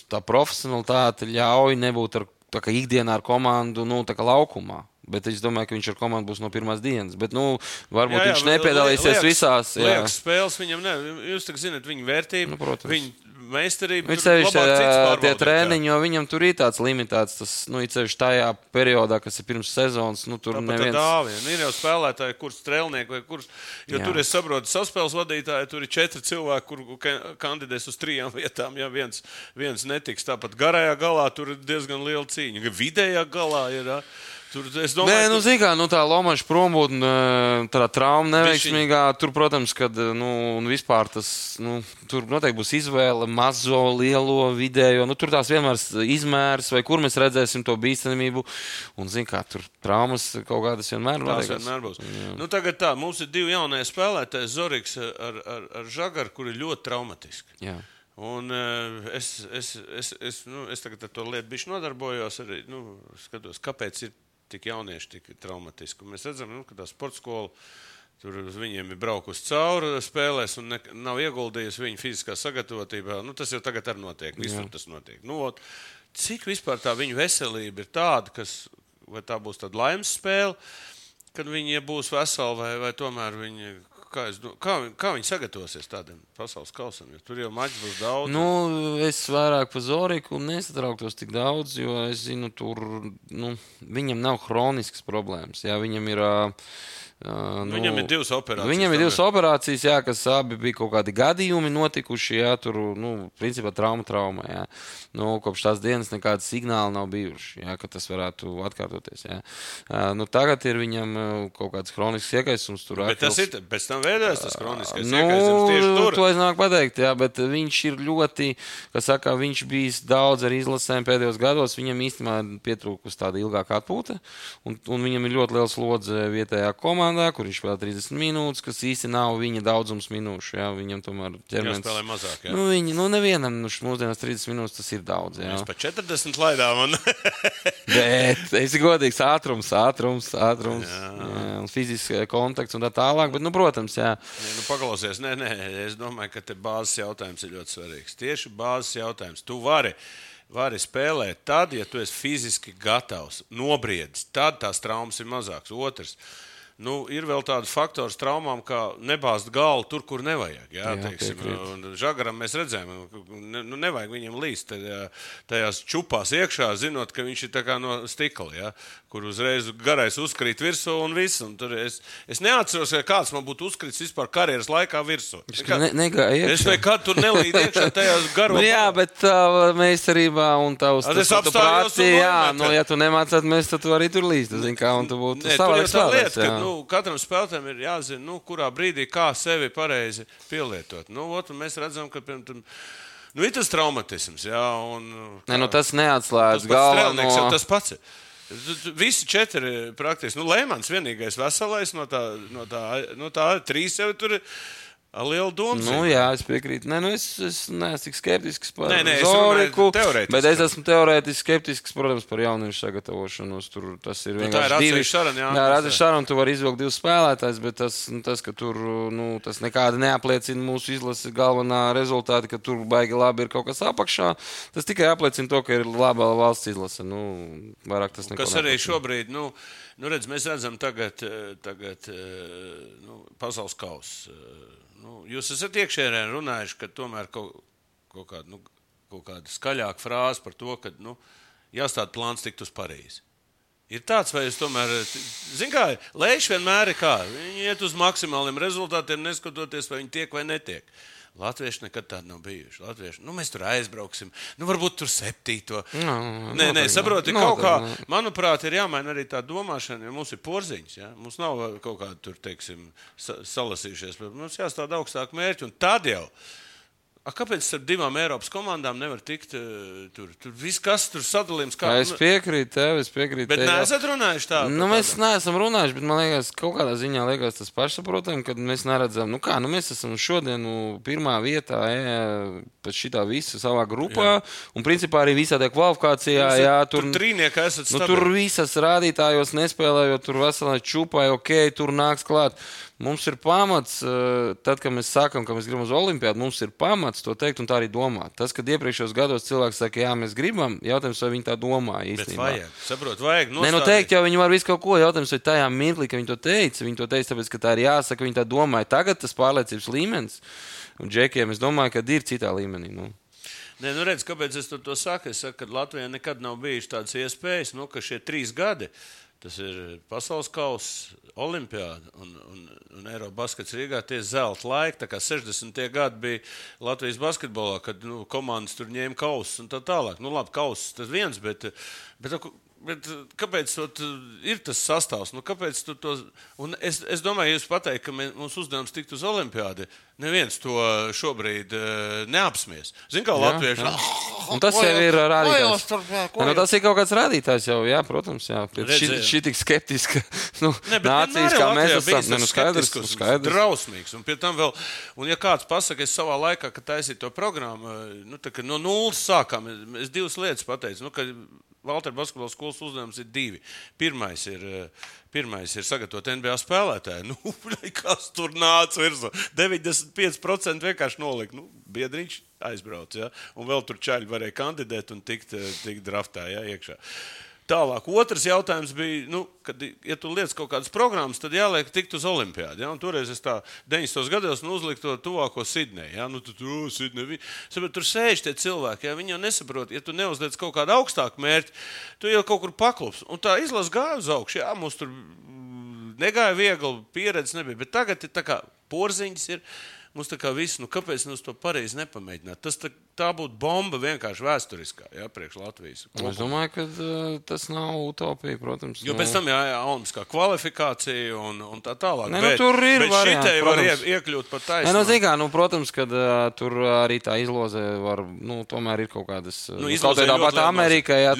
tā profesionalitāte ļauj nebūt tā kā ikdienā ar komandu, tā kā laukumā. Bet es domāju, ka viņš ar komandu būs no pirmās dienas. Bet, varbūt viņš nepiedalīsies visās. Liekas spēles viņam ne. Jūs tak zināt viņu vērtību, viņa meistarību. Viņš sevišķi tie treniņi, jo viņam tur ir tāds limitāts. Tas, cevišķi tajā periodā, kas ir pirms sezonas, tur neviens. Ir jau spēlētāji, kur strēlnieki vai kur. Jo tur es saprotu, saspēles vadītāji, tur ir 4 cilvēki, kur kandidēs uz 3 vietām. Ja viens netiks tāpat garajā galā, tur ir diezgan liela cīņa. Vidējā galā ir. Tur, es domāju, tā Lomaša prombūtne, tā trauma neveiksmīgā, tur, protams, kad, vispār tas, tur noteikti būs izvēle, mazo, lielo, vidējo, tur tās vienmēr izmērs, vai kur mēs redzēsim to bīstamību, un, tur traumas kaut kādas vienmēr būs. Tagad tā, mums ir 2 jaunie spēlētāji, Zoriks ar Žagaru, kuri ir ļoti traumatiski. Jā. Un es tagad ar to lietu bišķi nodarbojos, arī, skatos, kāpēc ir tik jaunieši, tik traumatiski. Mēs redzam, ka tā sporta skola, tur viņiem ir braukusi cauri spēlēs un nav ieguldījusi viņu fiziskā sagatavotībā. Tas jau tagad arī notiek, visur tas notiek. Cik vispār tā viņu veselība ir tāda, vai tā būs tāda laimes spēle, kad viņi būs veseli, vai tomēr viņi... Kā viņi sagatavosies tādiem pasaules kausam? Tur jau mačs būs daudz. Es vairāk par Zoriku nesatrauktos tik daudz, jo es zinu, tur viņam nav hroniskas problēmas. Jā, viņam ir... Viņam ir 2 operācijas. Viņam ir 2 operācijas, jā, kas abi bija kaut kādi gadījumi notikuši, jā, tur, principā trauma, jā. Kopš tās dienas nekāda signāla nav bijuši, jā, ka tas varētu atkārtoties, jā. Tagad ir viņam kaut kāds hronisks iekaisums tur. Bet tas ir, pēc tam veidojas tas hroniskais iekaisums tieši tur. To es nāk pateikt, jā, bet viņš ir ļoti, viņš bijis daudz ar izlasēm pēdējos gados, viņam īstenībā pietrūkus tāda ilgāka atpūta, un viņam ir ļoti liels lodze vietējā komandā, kur viņš spēlē 30 minūtes, kas īsti nav viņa daudzums minūšu. Jā, viņam tomēr ķermenis... Jāspēlē mazāk, jā. Nevienam mūsdienās 30 minūtes tas ir daudz, jā. Mēs pa 40 laidām un... Bet, es godīgs, ātrums, un fizisks kontakts un tā tālāk, bet, protams, jā. Paklausies, es domāju, ka te bāzes jautājums ir ļoti svarīgs. Tieši bāzes jautājums. Tu vari spēlēt tad, ja tu esi fiziski gatavs, nobriedis, tad tās traumas ir mazākas. Otrs, ir vēl tādi faktori traumām, kā nebāzt galvu tur, kur nevajag. Jā, teiksim, Žagaram mēs redzējām, nevajag viņam līst tajās čupās iekšā, zinot, ka viņš ir tā kā no stikla, jā, kur uzreiz garais uzkrīt virsū un viss. Un tur es neatceros, ka kāds man būtu uzkrits vispār karjeras laikā virsū. Es nekad tur nelīdu iekšā tajās garo. Jā, bet meistarībā un tavs prātī, ja tu nemācāt mēs, tad tu arī tur līst, un tu būtu savādāk spēlēts. Katram spēlētājam ir jāzina, kurā brīdī kā sevi pareizi pielietot. Mēs redzam, ka ir tas traumatisms, jā, un... tas neatslēdz galveno... Tas pats ir. Visi 4 praktiski. Lēmans vienīgais veselais no tā 3 jau tur ir liela doma. Jā, es piekrītu. Es neesmu tik skeptisks par Zoriku, bet es esmu teorētiski skeptisks, protams, par jauniešu sagatavošanos. Tur tas ir vienkārši tā ir atsevišķa saruna, tu vari izvilkt 2 spēlētājus, bet tas, ka tur tas nekādi neapliecina mūsu izlases galvenā rezultāti, ka tur baigi labi ir kaut kas apakšā. Tas tikai apliecina to, ka ir laba valsts izlase. Vairāk tas neko kas arī šobrīd, redz, mēs redzam tagad pasaules kausa. Jūs esat iekšērē runājuši, ka tomēr kaut kāda skaļāka frāze par to, ka jāstāda plāns tikt uz Parīzi. Ir tāds, vai jūs tomēr, Leiši vienmēr ir kā, viņi iet uz maksimāliem rezultātiem, neskatoties, vai viņi tiek vai netiek. Latvieši nekad tādi nav bijuši. Latvieši, mēs tur aizbrauksim, varbūt tur 7. Saproti, kaut kā, manuprāt, ir jāmaina arī tā domāšana, jo mums ir porziņš, ja? Mums nav kaut kādi tur, teiksim, salasījušies, bet mums jāstāda augstāk mērķi, un tad jau. Kāpēc ar 2 Eiropas komandām nevar tikt tur? Tur viss, kas tur sadalījums kā... Es piekrītu tev. Bet neesat runājuši tā? Mēs neesam runājuši, bet man liekas, kaut kādā ziņā liekas tas pašsaprotami, kad mēs neredzam, mēs esam šodien pirmā vietā pēc šitā visa savā grupā, un principā arī visā tajā kvalifikācijā, tur trīniekā esat stabili. Tur visas rādītājos nespēlējot, tur veselai čupai, tur nāks klāt. Mums ir pamats, tad, kad mēs sākam, ka mēs gribam uz olimpiādu, mums ir pamats pamats to teikt un tā arī domāt. Tas, kad iepriekšējos gados cilvēks saka, jā, mēs gribam, jautājums, vai viņi tā domā īstenībā. Bet vajag nostādīt. Nu teikt jau, viņi var visu kaut ko, jautājums, vai tajā mirklī, ka viņi to teica, tāpēc, ka tā ir jāsaka, viņi tā domāja. Tagad tas pārliecības līmenis, un džekiem, es domāju, ka ir citā līmenī, Nē, redz, kāpēc es to saku? Es saku, ka Latvijā nekad nav bijuši tādas iespējas, ka šie 3 gadi, tas ir pasaules kauss, olimpiāda un Eiropas baskets Rīgā, tie zelta laiki, tā kā 60. gadi bija Latvijas basketbolā, kad komandas tur ņēma kausus un tā tālāk. Labi, kausus tas viens, bet kāpēc ir tas sastāvs? Kāpēc to... Un es domāju, jūs pateikt, ka mums uzdevums tikt uz olimpiādi, neviens to šobrīd neapsmies. Zin, kā latvieši... Un tas jau ir rādītājs. Tas ir kaut kāds rādītājs jau, jā, protams, jā. Šī tik skeptiska nācijas, kā mēs esam. Skaidrs. Drausmīgs. Un pie tam vēl, un ja kāds pasaka, es savā laikā, kad taisīju to programmu, tā kā no nulles sākām, es 2 lietas pateicu, ka Valtera basketbola skolas uzdevums ir 2. Pirmais ir sagatavot NBA spēlētāju. Kas tur nāca virsū? 95% vienkārši nolika. Biedriņš aizbrauc, ja? Un vēl tur čaļi varēja kandidēt un tikt draftā, ja, iekšā. Tālāk, otrs jautājums bija, kad, ja tu lietas kaut kādas programmas, tad jāliek tikt uz olimpiādi. Ja? Un toreiz es tā 90. gados uzliku to tuvāko Sidneju. Ja? Sidneju. Tur sēž tie cilvēki, ja? Viņi jau nesaprot, ja tu neuzliec kaut kādu augstāku mērķi, tu jau kaut kur paklups. Un tā izlasa gāja uz augšu. Jā, mums tur negāja viegli, pieredze nebija. Bet tagad ir tā kā porziņas ir. Mums tā kā viss, kāpēc mums to pareizi nepamēģināt? Tā būtu bomba vienkārši vēsturiskā, jā, priekš Latvijas. Es domāju, ka tas nav utopija, protams. Jo pēc tam olimpiskā kvalifikācija un tā tālāk. Tur ir bet šitai var iekļūt pat taisnā. Protams, ka tur arī tā izloze var, tomēr ir kaut kādas... Kaut kādā pat Amerikā, jā,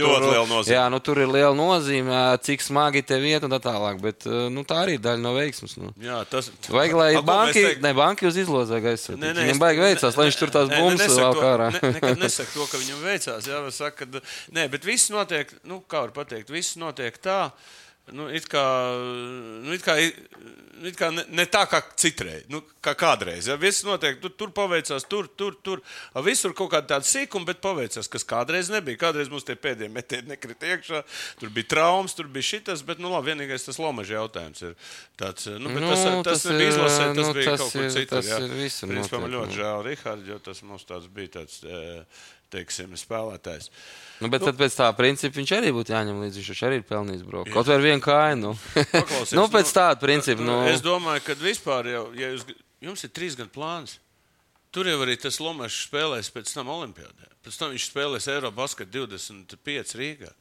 tur ir liela nozīme, cik smagi tev iet un tā tālāk, bet tā arī ir daļa no veiksmes. Jā, tas... Vajag, lai banki uz izlozi vajag aizsūt. Viņam baigi veicās, lai viņš tur tās bumbas vēl kārā. Nekad nesaka to, ka viņam veicās. Jā, saka, bet viss notiek, kā var pateikt, viss notiek tā, it kā ne tā kā citreiz, kā kādreiz. Ja? Viss notiek, tur paveicās, tur. Visur kaut kāda tāda sīkuma, bet paveicās, kas kādreiz nebija. Kādreiz mums tie pēdējie metieni nekrita iekšā, tur bija traumas, tur bija šitas, bet, labi, vienīgais tas Lomaža jautājums ir tāds, tas nebija izlasē, tas bija kaut kur citur. Tas ir visur notiek. Man ļoti žēl Rihards, jo tas mums tāds bija tāds, teiksim, spēlētājs. Bet tad pēc tā principa viņš arī būtu jāņem līdzi, viņš arī ir pelnījis broku. Kaut vai ar vienu kāju, pēc tāda principa. Es domāju, ka vispār jau, ja jums ir 3 gadu plāns, tur jau arī tas Lomašs spēlēs pēc tam olimpiādē. Pēc tam viņš spēlēs Eirobasket 25 Rīgā.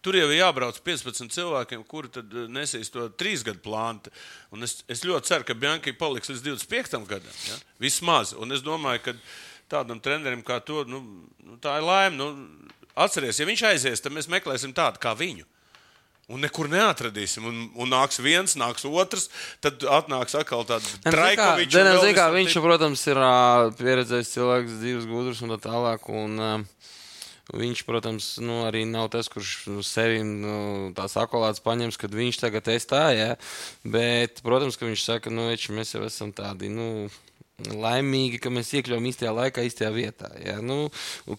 Tur jau ir jābrauc 15 cilvēkiem, kuri tad nesīs to 3 gadu plānu. Un es ļoti ceru, ka Bianchi paliks līdz 25 gadam. Ja? Vismaz. Un es domāju, ka tādam trenerim kā to, tā ir laime. Atceries, ja viņš aizies, tad mēs meklēsim tādu kā viņu. Un nekur neatradīsim. Un nāks viens, nāks otrs, tad atnāks atkal tāda Traikoviča. Viņš, protams, ir pieredzējis cilvēks, dzīves gudrs un tā tālāk. Un viņš, protams, arī nav tas, kurš sevim tās akolādes paņems, kad viņš tagad tā. Bet, protams, ka viņš saka, mēs jau esam tādi, laimīgi, ka mēs iekļaujam īstajā laikā, īstajā vietā. Ja?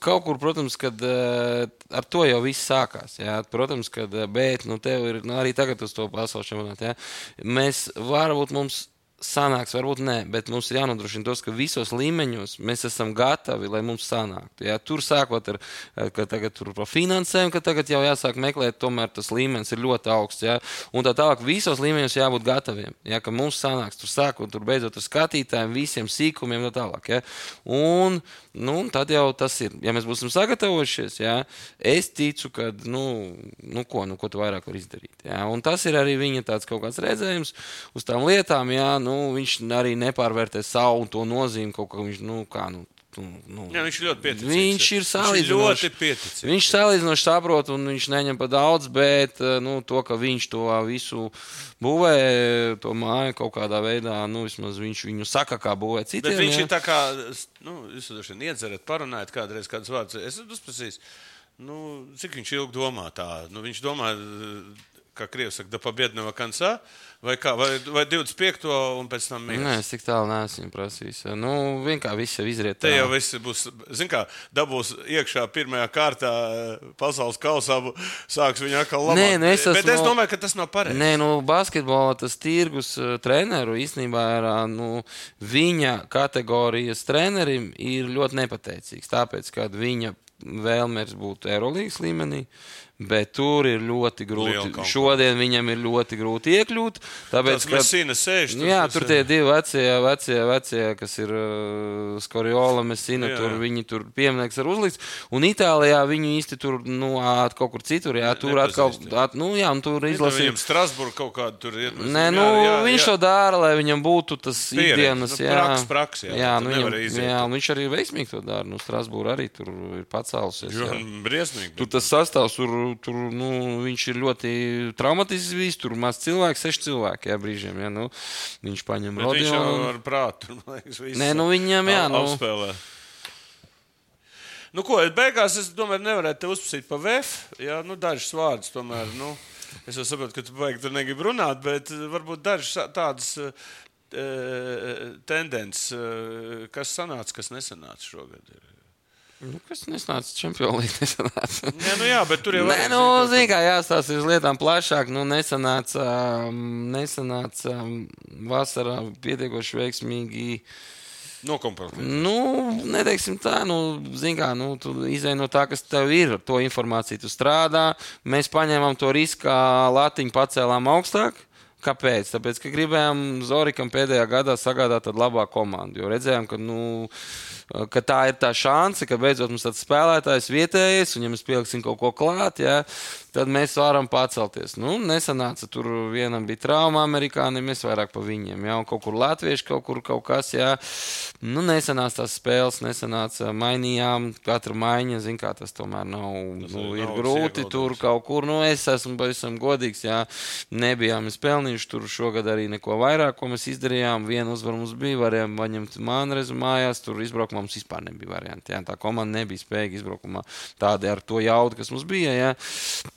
Kaut kur, protams, kad ar to jau viss sākās. Ja? Protams, kad, bet tev ir arī tagad uz to pasaules čempionātu. Ja? Mēs varbūt mums sanāks, varbūt ne, bet mums ir jānodrošina tos, ka visos līmeņos mēs esam gatavi, lai mums sanāktu. Ja? Tur sākot ar, ka tagad tur par finansēm, ka tagad jau jāsāk meklēt, tomēr tas līmenis ir ļoti augsts. Ja? Un tā tālāk visos līmeņos jābūt gataviem, ja? Ka mums sanāks, tur sākot, tur beidzot ar skatītājiem, visiem sīkumiem un tā tālāk. Ja? Un tad jau tas ir. Ja mēs būsim sagatavojušies, ja? Es ticu, ka, ko tu vairāk var izdarīt. Ja? Un tas ir arī viņa tāds kaut kāds redzējums uz tām lietām, ja? Viņš arī nepārvērtē savu un to nozīmi kaut kā viņš, Jā, viņš ir ļoti pieticīgs. Viņš ir salīdzinoši. Viņš salīdzinoši saprot un viņš neņem pa daudz, bet to, ka viņš to visu būvē, to māju kaut kādā veidā, vismaz viņš viņu saka, kā būvē citiem. Bet viņš ir tā kā, jūs iedzerat, parunājat kādreiz kādas vārdas. Es uzprasīju, cik viņš ilgi domā tā. Viņš domā, kā krievi saka, da победного конца, vai kā, vai 25. un pēc tam miers? Nē, es tik tālu neesmu prasījis. Nu, vienkārši viss jau izriet. Te jau viss būs, zin kā, dabūs iekšā pirmajā kārtā pasaules kausā, sāks viņu atkal labāk. Nē, bet es domāju, ka tas nav pareizi. Nē, basketbolā tas tirgus treneru īstenībā ir, viņa kategorijas trenerim ir ļoti nepateicīgs. Tāpēc, kad viņa vēlmēs būt Eirolīgas līmenī, bet tur ir ļoti grūti. Šodien viņam ir ļoti grūti iekļūt. Tāpēc, ka Messina sēž. Tur tie divi vecie, kas ir Skoriola, Messina, tur viņi tur pieminēks ar uzlīdz. Un Itālijā viņu īsti tur, kaut kur citur, tur atkal, un tur izlasīja. Viņam Strasburg kaut kādu tur iet. Nē, viņš to dara, lai viņam būtu tas ikdienas, praks, viņš arī veiksmīgi to dara. Strasburg arī tur ir pacēlusies. Briesmīgi. Tur tas sastāvs, viņš ir ļoti traumatizējis, tur maz cilvēks, 6 cilvēki, brīžiem, viņš paņem Rodionu. Viņš jau ar prātu, man liekas, visu. Nē, viņam, apspēlē. Ko, beigās es tomēr nevarētu te uzpasīt pa VF, dažas vārdas tomēr, es jau saprotu, ka tu baigi tur negribi runāt, bet varbūt dažas tādas tendences, kas sanāca, kas nesanāca šogad ir. Kas nesanāca Čempionu līgu, nesanāca. Jā, bet tur jau zin kā jāstāsta uz lietām plašāk, nesanāca vasarā pietiekoši veiksmīgi nokomplektēt. Neteiksim tā, zin kā, tu izēj no tā, kas tev ir, to informāciju tu strādā, mēs paņēmām to riskā latiņu pacēlām augstāk. Kāpēc? Tāpēc, ka gribējām Zorikam pēdējā gadā sagādāt tādu labāku komandu, jo redzējām, ka tā ir tā šanse, ka beidzot mums tāds spēlētājs vietējais, un ja mēs pieliksim kaut ko klāt, tad mēs varam pacelties. Nesanāca, tur vienam bija trauma amerikāni, mēs vairāk pa viņiem, un kaut kur latvieši, kaut kas, nesanāca tās spēles, nesanāca, mainījām, katra maiņa, zin kā tas tomēr nav, ir grūti tur kaut kur, es esmu pavisam godīgs, nebijām mēs pelnījuši tur šogad arī neko vairāk, ko mēs izdarījām, vienu uzvaru mums bija, varējām paņemt Manrezu mājās, tur izbraukumā mums vispār nebija varianti, tā komanda nebija spējīga izbraukumā tādi ar to jaudu, kas mums bija,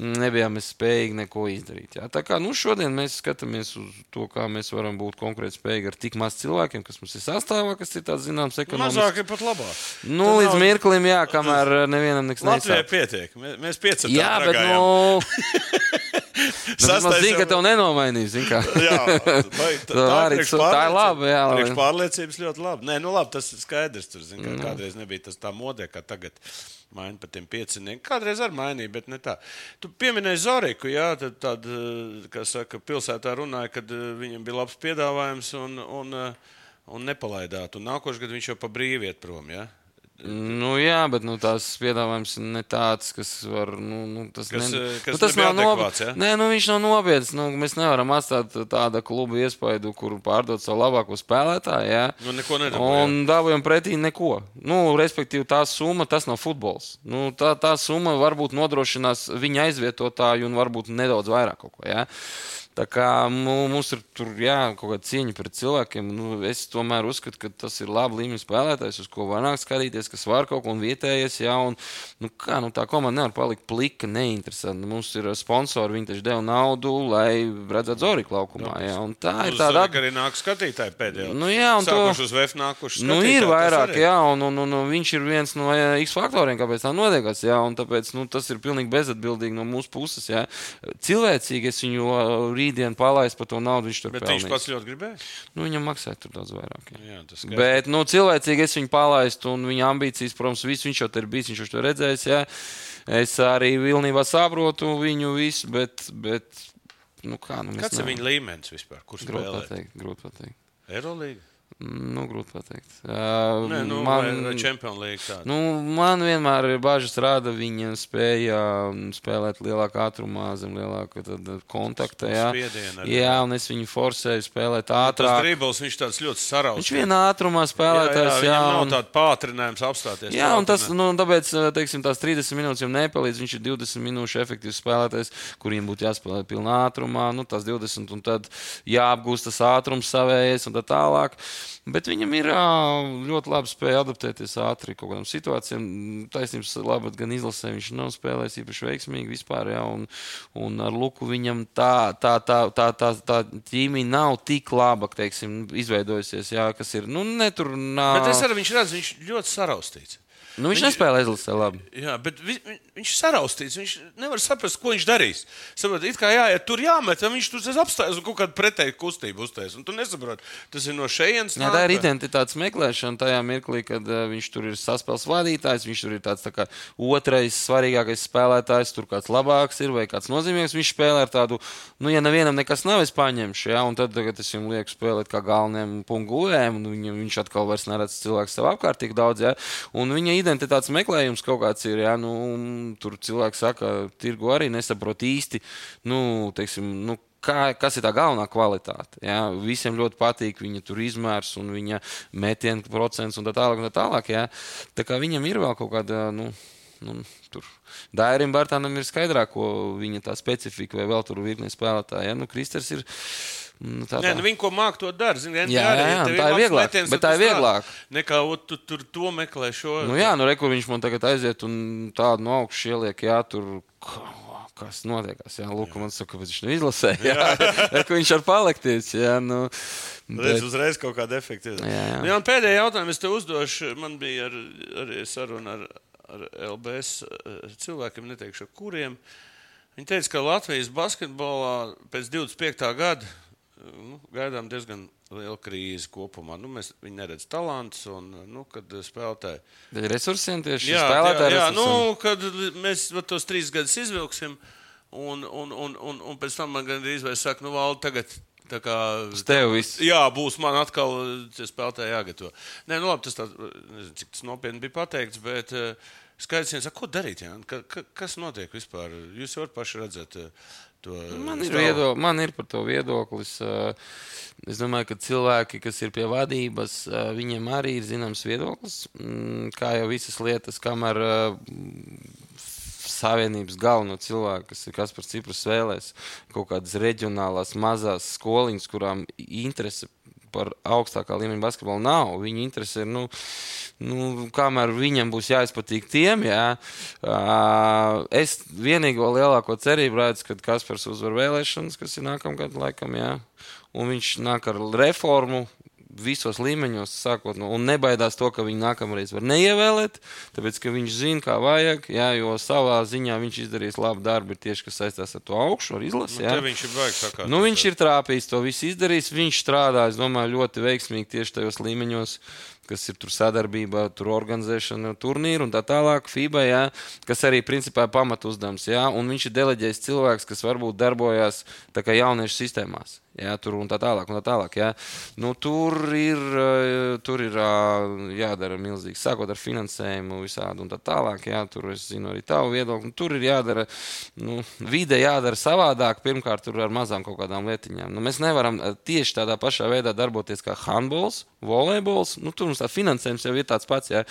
nebijām mēs spējīgi neko izdarīt. Tā kā šodien mēs skatāmies uz to, kā mēs varam būt konkrēti spējīgi ar tik maz cilvēkiem, kas mums ir sastāvā, kas ir tāds zināms ekonomisks. Mazāk ir pat labāk. Līdz mirklim, kamēr nevienam nekas nesāk. Latvijai pietiek. Mēs 5 bet Vismaz zini, ka tev nenomainīs, zini kā. Tā ir labi, Priekš pārliecības ļoti labi. Nē, labi, tas ir skaidrs. Tur, zini, kā kādreiz nebija tas tā modē, kā tagad maina pa tiem 5. Kādreiz ar mainīja, bet ne tā. Tu pieminēji Zoriku, tad, kā saka, pilsētā runāja, kad viņam bija labs piedāvājums un nepalaidāt. Un nākošais gadu viņš jau pa brīvi iet prom, Bet tās piedāvājums ir ne tāds, kas var, tas nav neadekvāts, viņš nav nopietns, mēs nevaram atstāt tāda kluba iespaidu, kur pārdot savu labāko spēlētāju, neko nedabūjam. Un dabūjam pretī neko. Respektīvi tā summa, tas nav futbols. Tā summa varbūt nodrošinās viņa aizvietotāju un varbūt nedaudz vairāk kaut ko, Tā kā mums ir tur kaut kāda cieņa pret cilvēkiem. Es tomēr uzskatu, ka tas ir labi līmeņa spēlētājs, uz ko var nākt skatīties, kas var kaut ko un vietējies. Tā komanda nevar palikt plika, neinteresanti. Mums ir sponsori, viņi taču deva naudu, lai redzētu Zoriku laukumā. Un tā ir tāda. Arī nāk skatītāji pēdējā. Sākuši uz VF nākuši skatītāji. Ir vairāk, un viņš ir viens no X faktoriem, kāpēc tā notiekās. Un tāpēc tas ir pilnīgi bezatbildīgi no mūsu puses. Cilvēcīgi es viņu rītdien palaist par to naudu, viņš tur pelnīs. Bet viņš pats ļoti gribēja? Viņam maksāja tur daudz vairāk. Bet, cilvēcīgi es viņu palaistu un viņa ambīcijas, protams, visu viņš jau te ir bijis, viņš jau to redzējis, Es arī vilnībā saprotu viņu visu, bet Kāds ir viņa līmenis vispār? Kur spēlēt? Grūti pateikt. Eirolīga? Grūti pateikt. Vai Čempionu līga tāda? Man vienmēr ir bažas rada viņa spēja spēlēt lielākā ātrumā, zem lielāka kontakta. Un es viņu forsēju spēlēt ātrāk. Tas dribbles, viņš tāds ļoti sarauts. Viņš vienā ātrumā spēlētājs. Viņam nav tāda pātrinājums apstāties. Un tas, tāpēc, teiksim, tās 30 minūtes viņam nepalīdz. Viņš ir 20 minūšu efektīvs spēlētājs, kuriem būtu jāspēlē pilnā ātrumā. Tās 20 un tad jāapgūst tas ātrums savējais un tā tālāk. Bet viņam ir ļoti labi spēja adaptēties ātri kaut kādām situācijām. Taisnības labi, gan izlasē viņš nav spēlējis īpaši veiksmīgi vispār, jā, un ar Luku viņam tā ķīmija nav tik laba, teiksim, izveidojusies, jā, kas ir, netur nav. Bet es arī viņš redzu, viņš ļoti saraustīts. Viņš nespēlē izlasē labi. Jā, bet viņš saraustīts, viņš nevar saprast, ko viņš darīs. Saprot, it kā jāiet tur jāmet, viņš tur apstājas un kaut kādu pretēju kustību uztais. Un tu nesaprot, tas ir no šejienes. Jā, tā ir identitātes meklēšana tajā mirklī, kad viņš tur ir saspēles vadītājs, viņš tur ir tāds tā kā otrais svarīgākais spēlētājs, tur kāds labāks ir vai kāds nozīmīgs. Viņš spēlē ar tādu, ja nevienam nekas nav, es paņemšu, jā, un tad tagad es viņam lieku spēlēt kā galveniem pungulēm, un viņš atkal vairs neredz cilvēks sev apkārt tik daudz, jā, un viņa identitātes meklējums kaut kāds ir, jā, tur cilvēks saka, tirgu arī nesaprot īsti, teiksim, kas ir tā galvenā kvalitāte. Jā? Visiem ļoti patīk viņa tur izmērs un viņa metienu procents un tā tālāk. Jā? Tā kā viņam ir vēl kaut kāda, tur Dairim Bartānam ir skaidrāk, ko viņa tā specifika vai vēl tur virknē spēlētāji. Jā? Kristers ir Viņi, ko māk, to dara. Jā, tā ir vieglāk. Bet tā ir vieglāk. Nekā tur to meklē šo. Kur viņš man tagad aiziet un tādu no augšu ieliek, jā, tur, kas notiekās, jā, Luka man saka, bet viņš izlasē, jā, ka viņš var palikties, jā, Redz uzreiz kaut kāda efekta. Jā, un pēdējā jautājuma es te uzdošu, man bija arī saruna ar LBS cilvēkiem, neteikšu ar kuriem. Viņi teica, ka Latvijas basketbolā pēc 25. gada gaidām diezgan liela krīze kopumā. Viņi neredz talants un, kad spēlētāji... Resursiem tieši spēlētāji resursiem. Kad mēs tos 3 gadus izvilksim un pēc tam man gandrīz vai saka, Valdi, tagad tā kā... Uz tev viss. Jā, būs man atkal spēlētāji jāgatavo. Nē, labi, tas tā, nezinu, cik tas nopietni bija pateikts, bet skaidrs, ko darīt, jā? Kas notiek vispār? Jūs varat paši redzēt... Man ir par to viedoklis. Es domāju, ka cilvēki, kas ir pie vadības, viņiem arī ir zināms viedoklis. Kā jau visas lietas, kamēr savienības galveno cilvēku, kas ir Kaspars Cipras vēlēs, kaut kādas reģionālās mazās skoliņas, kurām interese par augstākā līmeņa basketbolu nav. Viņa interese ir, kamēr viņam būs jāizpatīk tiem, jā. Es vienīgo lielāko cerību redzu, kad Kaspars uzvar vēlēšanas, kas ir nākamgad laikam, jā. Un viņš nāk ar reformu visos līmeņos, sākot un nebaidās to, ka viņu nākamreiz var neievēlēt, tāpēc, ka viņš zina, kā vajag, jā, jo savā ziņā viņš izdarīs labu darbu, ir tieši, kas saistās ar to augšu, ar izlasi, jā. Viņš ir baigi sakāt. Viņš ir trāpījis, to visu izdarījis, viņš strādā, es domāju, ļoti veiksmīgi tieši tajos līmeņos, kas ir tur sadarbība, tur organizēšana, turnīru un tā tālāk, FIBA, jā, kas arī principā pamatu uzdevums, jā, un viņš ir deleģējis cilvēks, kas varbūt darbojās tā kā jauniešu sistēmās. Jā, tur un tā tālāk, jā. Tur ir jādara milzīgi, sākot ar finansējumu visādi un tā tālāk, jā, tur es zinu arī tavu viedokli. Tur ir jādara, vide jādara savādāk, pirmkārt tur ar mazām kaut kādām lietiņām. Mēs nevaram tieši tādā pašā veidā darboties kā handbols, volejbols, tur mums tā finansējums jau ir tāds pats, jā.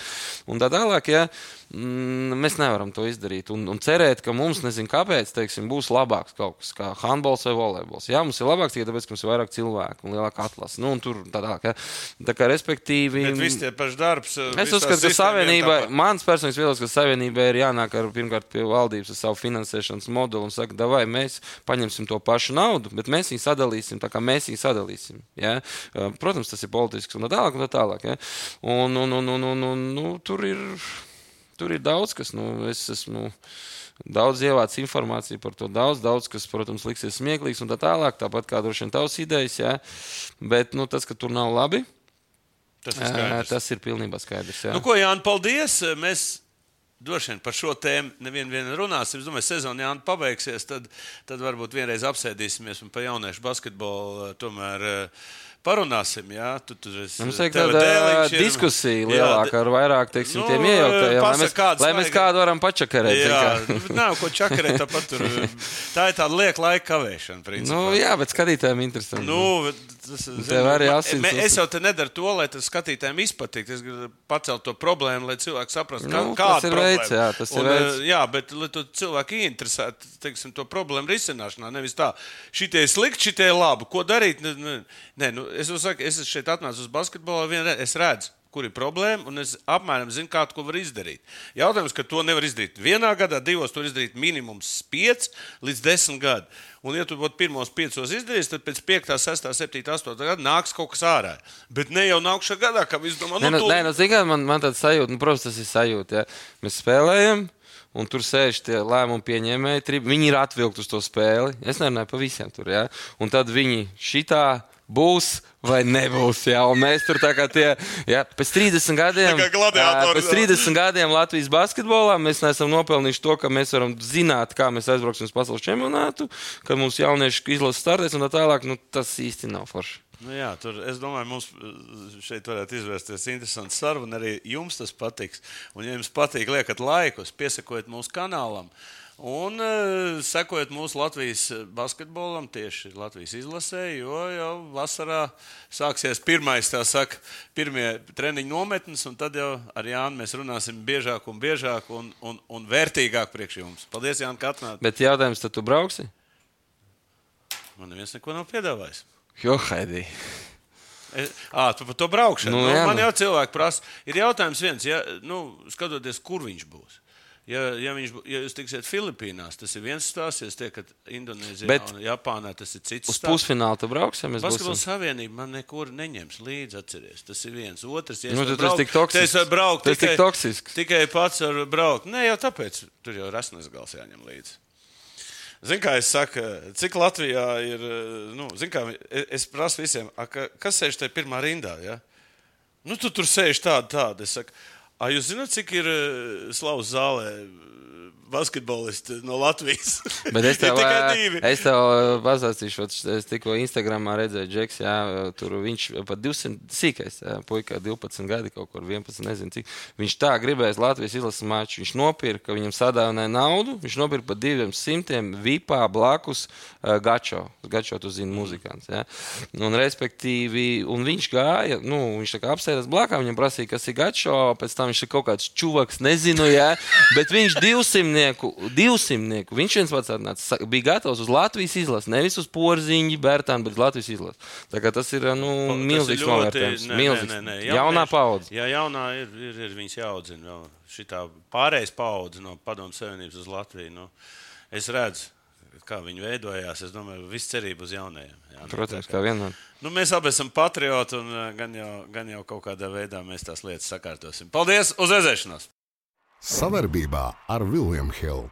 Un tā tālāk, jā, mēs nevaram to izdarīt un cerēt, ka mums, nezinu kāpēc, teiksim, būs labāks kaut kas, kā handbols vai volejbols. Jā, mums ir labāks tikai tāpēc, ka mums ir vairāk cilvēku un lielāka atlase. Un tur tā tālāk, jā. Tā kā respektīvi... Bet viss tie paši darbs... Es uzskatu, ka savienībai, mans personīgs viedoklis, ka savienībai ir jānāk pirmkārt pie valdības ar savu finansēšanas modeli un saka, davai, mēs paņemsim to pašu naudu, bet mēs viņu sadalīsim, tā kā mēs viņu sadalīsim. Jā. Protams, tas ir politisks un tā tālāk, jā. Un tur ir daudz, kas, es esmu daudz ievāc informāciju par to, daudz, kas, protams, liksies smieklīgs un tā tālāk, tāpat kā droši vien tavs idejas, jā, bet, tas, ka tur nav labi, tas ir pilnībā skaidrs, jā. Ko, Jāni, paldies, mēs droši vien par šo tēmu nevienu runāsim, es domāju, sezona Jāni pabeigsies, tad varbūt vienreiz apsēdīsimies un par jauniešu basketbolu tomēr parunāsim, jā. Mums vajag tāda diskusija lielāka ar vairāk, teiksim, tiem iejauktajiem, lai mēs kādu varam pačakarēt. Jā, nav ko čakarēt, tāpat tur. Tā ir tāda lieka laika kavēšana, principā. Jā, bet skatītājiem interesanti. Tev arī asins. Es jau te nedaru to, lai tas skatītājiem izpatikt. Es gribu pacelt to problēmu, lai cilvēki saprastu, kāda problēma. Tas ir veids. Jā, bet lai to cilvēki ieinteresētu, teiksim, to problēmu risināšanā. Nevis tā, šitie ir slikti, šitie ir labi. Ko darīt? es šeit atnācu uz basketbolu, es redzu, kur ir problēma, un es apmēram zinu, kā to var izdarīt. Jautājums, ka to nevar izdarīt vienā gadā, 2, to izdarīt minimums 5 līdz 10 gadu. Un, ja tu būtu pirmos 5 izdarījis, tad pēc 5, 6, 7, 8 gada nāks kaut kas ārā. Bet ne jau nākšā gadā, kā viss domā. Man tāds sajūta, protams, tas ir sajūta. Ja? Mēs spēlējam, un tur sēž tie lēmumu pieņēmēji. Viņi ir atvilkt uz to spēli. Es nerunāju pa visiem tur. Ja? Un tad viņi šitā būs vai nebūs. Ja? Un mēs tur tā kā tie, ja, pēc 30 gadiem Latvijas basketbolā mēs neesam nopelnījuši to, ka mēs varam zināt, kā mēs aizbrauksim uz pasaules čempionātu, kad mums jaunieši izlases startēs un tā tālāk. Tas īsti nav forši. Jā, tur, es domāju, mums šeit varētu izvērsties interesants saruna, un arī jums tas patiks. Un, ja jums patīk, liekat laikus, piesakojiet mūsu kanālam un sekojiet mūsu Latvijas basketbolam, tieši Latvijas izlasē, jo jau vasarā sāksies pirmie treniņu nometnes, un tad jau ar Jānu mēs runāsim biežāk un vērtīgāk priekš jums. Paldies, Jāni, ka atnāci. Bet jautājums, tad tu brauksi? Man neviens neko nav piedāvājis. Jo, Haidī. Tu par to braukšanu. Man jau cilvēki prasa. Ir jautājums viens, skatoties, kur viņš būs. Ja jūs tiksiet Filipīnās, tas ir viens stāsts, ja jūs tiekat Indonēzijā un Japānā, tas ir cits stāsts. Uz pusfinālu tu brauks, ja mēs būsim? Basketbola savienība man nekur neņems līdzi, atceries. Tas ir viens. Otrs, ja tas tik toksisks. Tas tik toksisks. Tikai pats var braukt. Nē, jau tāpēc tur jau rasnes gals jāņem līdzi. Zin, kā es saku, cik Latvijā ir, es prasu visiem, kas sēž tajā pirmā rindā, ja? Tu tur sēž tādu. Es saku, jūs zināt, cik ir Slavas zālē basketbolisti no Latvijas? Bet es tev pastāstīšu, es tikko Instagramā redzēju Džeks, jā, tur viņš pat 200 sīkais, jā, puika 12 gadi, kaut kur 11, nezinu cik. Viņš tā gribēs Latvijas izlases maču, viņš nopirka, viņam sadāvināja naudu, viņš nopirka pa 200 vipā blakus Gačo. Gačo, tu zini, muzikants, jā. Un respektīvi, un viņš gāja, viņš tā kā apsēdās blakā, viņam prasīja, kas ir Gačo, pēc tam viņš ir kaut kāds čuvaks, nezinu, jā, bet viņš 200, viņš viens pats atnāca, bija gatavs uz Latvijas izlases, nevis uz Porziņu, Bērtānu, bet Latvijas izlases. Tā kā tas ir, milzīgs novērtējums. Milzīgs. Jaunā paudze. Jā, jaunā ir viņas jāaudzina. Šitā pārējais paudze no Padomu Savienības uz Latviju. Es redzu, kā viņi veidojās. Es domāju, viss cerība uz jaunajiem. Jā, protams, kā vienmēr. Mēs abi esam patrioti un gan jau kaut kādā veidā mēs tās lietas sakārtosim. Paldies, uz redzēšanos! Savarbībā ar William Hill.